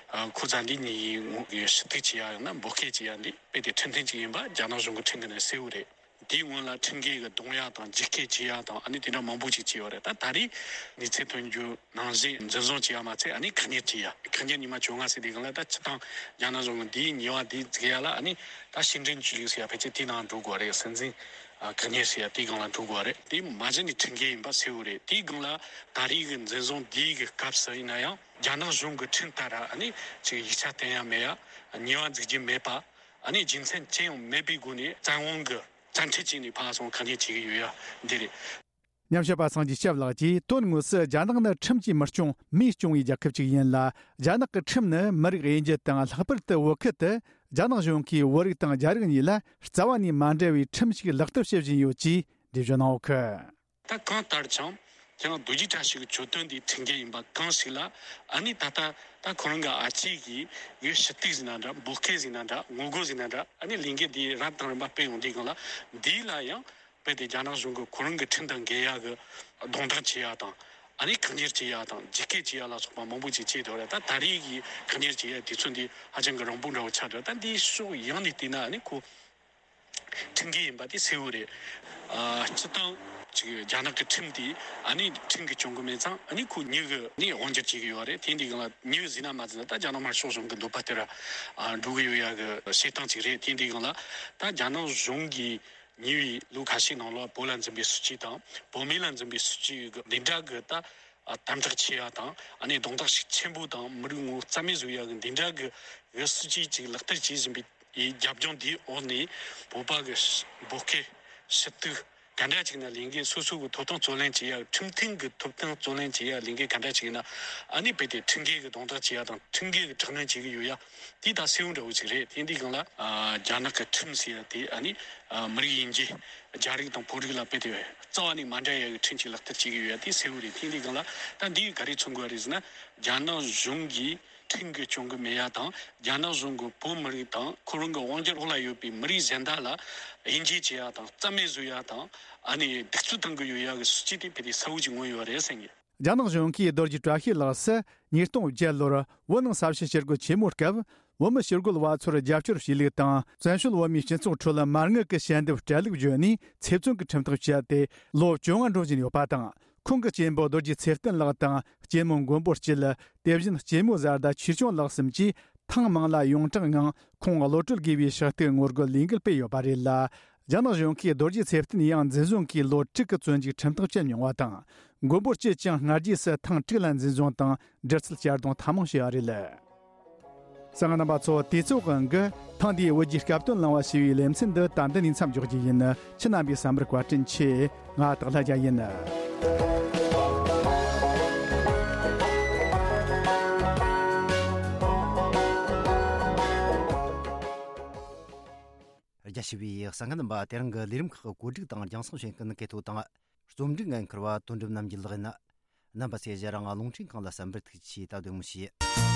ཁོ་ཚ་འདི་གཉིས་ངོ་གི་ཞུ་གཏུག་བྱེད་ཡ་ཡང་ན་འབོད་སྐད་བྱེད་ཡ་འདི་དཔེ་དེ་ཁྲིམས་མཐུན་ཅིག་ཡིན་པ་རྒྱ་ནག་གཞུང་གི་ཁྲིམས་ཀྱི་ནང་གསལ་བོ་རེད། དེའི་སྔོན་ལ་ཁྲིམས་འགལ་གྱི་རྡུང་ཡ་དང་འཇིགས་སྐུལ་བྱེད་ཡ་དང་ཨ་ནི་དེ་འདྲ་མང་པོ་ཅིག་བྱས་ཡོད་རེད། ད་ད་རེས་གནས་ཚུལ་ཐོན་རྒྱུ་ནང་བཞིན་འཛིན་བཟུང་བྱེད་ཡ་མ་ཚད་ཨ་ནི་བཀག་ཉར་བྱེད་ཡ། བཀག་ཉར་ཉི་མ་བཅོ་ལྔ་ཟེར་དུས་སྒང་ལ་ད་སྤྱིར་བཏང་རྒྱ་ནག་གཞུང་གིས་འདིའི་ཉེས་པ་འདི་འཛུགས་ཡ་ལ་ཨ་ནི་ད་ཕྱི་འབྲེལ་ཆོས་ལུགས་ཟེར་ཡ་ཕལ་ཆེར་དེའི་ནང་འགྲོ་དགོས་རེད། སྲིད་འཛིན་བཀག་ཉར་ཟེར་ཡ་དེའི་སྒང་ལ་འགྲོ་དགོས་རེད། དེ་མ་གཞི་ནས་ཁྲིམས་འགལ་ཡིན་པ་གསལ་བོ་རེད། དེའི་སྒང་ལ་ད་རེས་ཀྱི་འཛིན་བཟུང་འདིའི་གི་སྐབས་སུ་ཡིན་ན་ཡང་རྒྱ་ནག་གཞུང་གི་ཁྲིམས་ལྟར་ཨ་ནི་ཅིག་ཡིག་ཆ་བསྟན་ཡ་མེད་ཡ། ཉེས་པ་འཛུགས་རྒྱུ་མེད་པ། ཨ་ནི་རྒྱུ་མཚན་ཅི་ཡང་མེད་པའི་སྒོ་ནས་བཙན་དབང་གི་བཙན་ཁྲིད་བྱས་ནས་ཕར་སོང་བཀག་ཉར་བྱེད་ཀྱི་ཡོད་ཡ་འདི་རེད། ཉམས་ཞིབ་པ་སངས་རྒྱས་སྐྱབས་ལགས་ཀྱིས་དོན་དངོས་སུ་རྒྱ་ནག་ནི་ཁྲིམས་ཀྱིས་མི་སྐྱོང་མིས་སྐྱོང་བའི་རྒྱལ་ཁབ་ཅིག་ཡིན་ལ། རྒྱ་ནག་གི་ཁྲིམས་ནི་མི་རིགས་དབྱེ་འབྱེད་དང་ལྷག་པར་དུ་བོད་ཁུལ་དུ་རྒྱ་ནག་གཞུང་གིས་བོད་རིགས་དང་རྒྱ་རིགས་གཉིས་ལ་རྩ་བ་ནས་མ་འབྲེལ་བའི་ཁྲིམས་ཤིག་ལག་བསྟར་བྱེད་བཞིན་ཡོད་ཅེས་འགྲེལ་བརྗོད་གནང་ཡོད་ཀི། ད་གང་ལྟར་ཀྱང་ཀྱང་རྡོ་རྗེ་བཀྲ་ཤིས་ཀྱི་གྱོད་དོན་འདི་ཁྲིམས་འགལ་ཡིན་པ་གང་ཞིག་ལ་ཨ་ནི་ད་ལྟ་ད་ཁོ་རང་གི་ཨ་ཅེ་གིས་ཡོད་ཞུ་གཏུག་ཟིན་ན་འདྲ། འབོད་སྐད་ཟིན་ན་འདྲ། ངོ་རྒོལ་ཟིན་ན་འདྲ། ཨ་ནི་ལས་འགུལ་འདི་རབ་དང་རིམ་པ་སྤེལ་ཡོང་དུས་སྒང་ལ་འདི་ལ་ཡང་རྦད་དེ་རྒྱ་ནག་གཞུང་གིས་ཁོ་རང་གི་ཁྲིམས་དང་འགལ་ཡ་གི་རྡུང་རྡེག་བྱེད་ཡ་དང་ཨ་ནི་བཀག་ཉར་བྱེད་ཡ་དང་འཇིགས་སྐུལ་བྱེད་ཡ་ལ་སོགས་པ་མང་པོ་ཅིག་བྱས་འདུག་རེད། ད་ད་རེས་ཀྱི་བཀག་ཉར་བྱེད་ཡ་དུས་ཚོད་འདི་ཧ་ཅང་གི་རིང་པོ་འདྲ་བོ་ཆགས་འདུག་ད་འདིའི་ཕྱོགས་ཡོངས་ནས་བལྟས་ན་ཨ་ནི་ཁོ་ཁྲིམས་འགལ་ཡིན་པ་དེ་གསལ་བོ་རེད། ཨ་སྤྱིར་བཏང་ཅིག་རྒྱ་ནག་གི་ཁྲིམས་དེ་ཨ་ནི་ཁྲིམས་ཀྱིས་སྐྱོང་གི་མེད་ཙང་ཨ་ནི་ཁོ་མྱི་གི་ནི་དབང་སྒྱུར་བྱེད་ཀྱི་ཡོད་རེད། དེ་འདི་སྒང་ལ་མྱི་ཟིན་ན་མ་ཟིན་ན་ད་རྒྱ་ནག་དམར་ཤོག་གཞུང་གི་འདོད་པ་ལྟར་ཨ་འགྲོ་གི་ཡོད་ཡ་གི་བྱེད་སྟངས་ཅིག་རེད། དེ་འདི་སྒང་ལ་ད་རྒྱ་ནག་གཞུང་གིས་ཉེ་བའི་ལོ་ཁ་ཤས་ནང་ལ་བོད་ལ་འཛིན་པའི་སྲིད་ཇུས་དང་བོད་མི་ལ་འཛིན་པའི་སྲིད་ཇུས་གི་འདི་འདྲ་གི་ད་ཨ་དམ་དྲག་བྱེད་ཡ་དང་ཨ་ནི་རྡུང་རྡེག་ཤུགས་ཆེན་པོ་དང་མི་རིགས་ངོ་རྩ་མེད་བཟོ་ཡ་གི་འདི་འདྲ་གི་གི་སྲིད་ཇུས་ཅིག་ལག་བསྟར་བྱེད་བཞིན་པའི་རྒྱབ་ལྗོངས་འདིའི་འོག་ནས་བོད་པ་གི་འབོད་སྐད་ཞུ་གཏུག་ག་འདྲ་ཅིག་ན་ལས་འགན་སོ་སོ་གི་ཐོབ་ཐང་རྩོད་ལེན་བྱེད་ཡ། ཁྲིམས་མཐུན་གི་ཐོབ་ཐང་རྩོད་ལེན་བྱེད་ཡ་ལས་འགན་ག་འདྲ་ཅིག་ཡིན་ན་ཨ་ནི་རྦད་དེ་ཁྲིམས་འགལ་གི་རྡུང་རྡེག་བྱེད་ཡ་དང་ཁྲིམས་འགལ་གི་དྲག་གནོན་བྱེད་ཀྱི་ཡོད་ཡ་དེ་ད་གསལ་བོ་འདྲ་བོ་ཅིག་རེད། དེ་འདི་སྒང་ལ་ཨ་རྒྱ་ནག་གི་ཁྲིམས་ཟེར་ཡ་དེ་ཨ་ནི་ཨ་མི་རིགས་དབྱེ་འབྱེད། རྒྱ་རིགས་དང་བོད་རིགས་ལ་རྦད་དེ་རྩ་བ་ནས་མ་འདྲ་ཡ་གི་ཁྲིམས་ཅིག་ལག་བསྟར་བྱེད་ཀྱི་ཡོད་ཡ་དེ་གསལ་བོ་རེད། དེ་འདི་སྒང་ལ་ད་འདི་ག་རེ་མཚོན་དགོས་རེད་ཟེར་ན་རྒྱ་ནག་གཞུང་གིས་ཁྲིམས་ཀྱིས་སྐྱོང་གི་མེད་ཡ་དང་རྒྱ་ནག་གཞུང་གིས་བོད་མི་རིགས་དང་ཁོ་རང་གི་དབང་སྒྱུར་འོག་ལ་ཡོད་པའི་མི་རིགས་གཞན་དག་ལ་དབྱེ་འབྱེད་བྱེད་ཡ་དང་རྩ་མེད་བཟོ་ཡ་དང་ཨ་ནི་གདུག་རྩུབ་གཏང་གི་ཡོད་ཡ་གི་སྲིད་ཇུས་དེ་དཔེ་དེ་གསལ་བོ་ཅིག་མངོན་ཡོད་རེད་ཟེར་གི། རྒྱ་ནག་གཞུང་གིས་རྡོ་རྗེ་བཀྲ་ཤིས་ལགས་སུ་ཉིས་སྟོང་བརྒྱད་ལོར་བོད་ནང་ས་བྱི་ཞི་རྒོལ་ཆེན་མོའི་སྐབས་བོད་མི་ཞི་རྒོལ་བ་ཚོར་རྒྱབ་སྐྱོར་བྱས་ལུགས་དང་བཙན་བྱོལ་བོད་མིའི་སྤྱི་ཚོགས་ཁྲོད་མ་དངུལ་གྱི་ཞལ་འདེབས་སྤྲད་ལུགས་བརྗོད་ནས་ཚེ་བཙོན་གྱི་ཁྲིམས་ཐག་བཅད་དེ་ལོ་བཅོ་ལྔ་འགྲོ་བཞིན་ཡོད་པ་དང་། ཁོང་གི་གཅེན་པོ་རྡོ་རྗེ་ཚེ་བརྟན་ལགས་དང་གཅེན་མོ་མགོན་པོ་སྐྱིད། དེ་བཞིན་གཅེན་མོ་བཟའ་ཟླ་ཆོས་སྐྱོང་ལགས་གསུམ་གྱིས་ཐེངས་མང་ལ་ཡོངས་གྲགས་ངང་ཁོང་གློད་གྲོལ་དགོས་པའི་ཕྱག་ཐུག་ངོ་རྒོལ་ལས་འགུལ་སྤེལ་ཡོད་པ་རེད་ལ། རྒྱ་ནག་གཞུང་གིས་རྡོ་རྗེ་ཚེ་བརྟན་ཡང་འཛིན་བཟུང་གིས་ལོ་དྲུག་གི་བཙོན་འཇུག་ཁྲིམས་ཐག་བཅད་མྱོང་བ་དང་། མགོན་པོ་སྐྱིད་ཀྱང་སྔ་རྗེས་སུ་ཐེངས་དྲུག་ལ་འཛིན་བཟུང་དང་འདྲི་རྩད་གཅར་རྡུང་ཐེངས་མང་བྱས་པ་རེད། གསན་མཁན་རྣམ་པ་ཚོ། དུས་ཚོད་དབང་གིས་ཐེངས་འདིའི་བོད་ཀྱི་སྐབས་དོན་གླེང་བ་ཞེས་པའི་ལེ་ཚན་འདི་ད་འདི་ནས་མཚམས་འཇོག་རྒྱུ་ཡིན། ཁྱེད་རྣམ་པའི་བསམ་པར་བཀའ་དྲིན་ཆེ། ང་སྟག་ལྷ་རྒྱལ་ཡིན། རྒྱ་ཆེ་བའི་གསན་མཁན་རྣམ་པ། དེ་རིང་གི་ལས་རིམ་ཁག་གི་བཀོད་སྒྲིག་དང་རྒྱང་སྲིང་བྱེད་མཁན་གལ་ཐོ་དང་། རྩོམ་སྒྲིག་འགན་འཁུར་བ་དོན་གྲུབ་རྣམ་རྒྱལ་ལགས་ཡིན། རྣམ་པ་ཚོས་ང་རང་རླུང་འཕྲིན་ཁང་ལ་གསན་པར་ཐུགས་རྗེ་ཆེ། ད་གདོང་མི་ཤེས།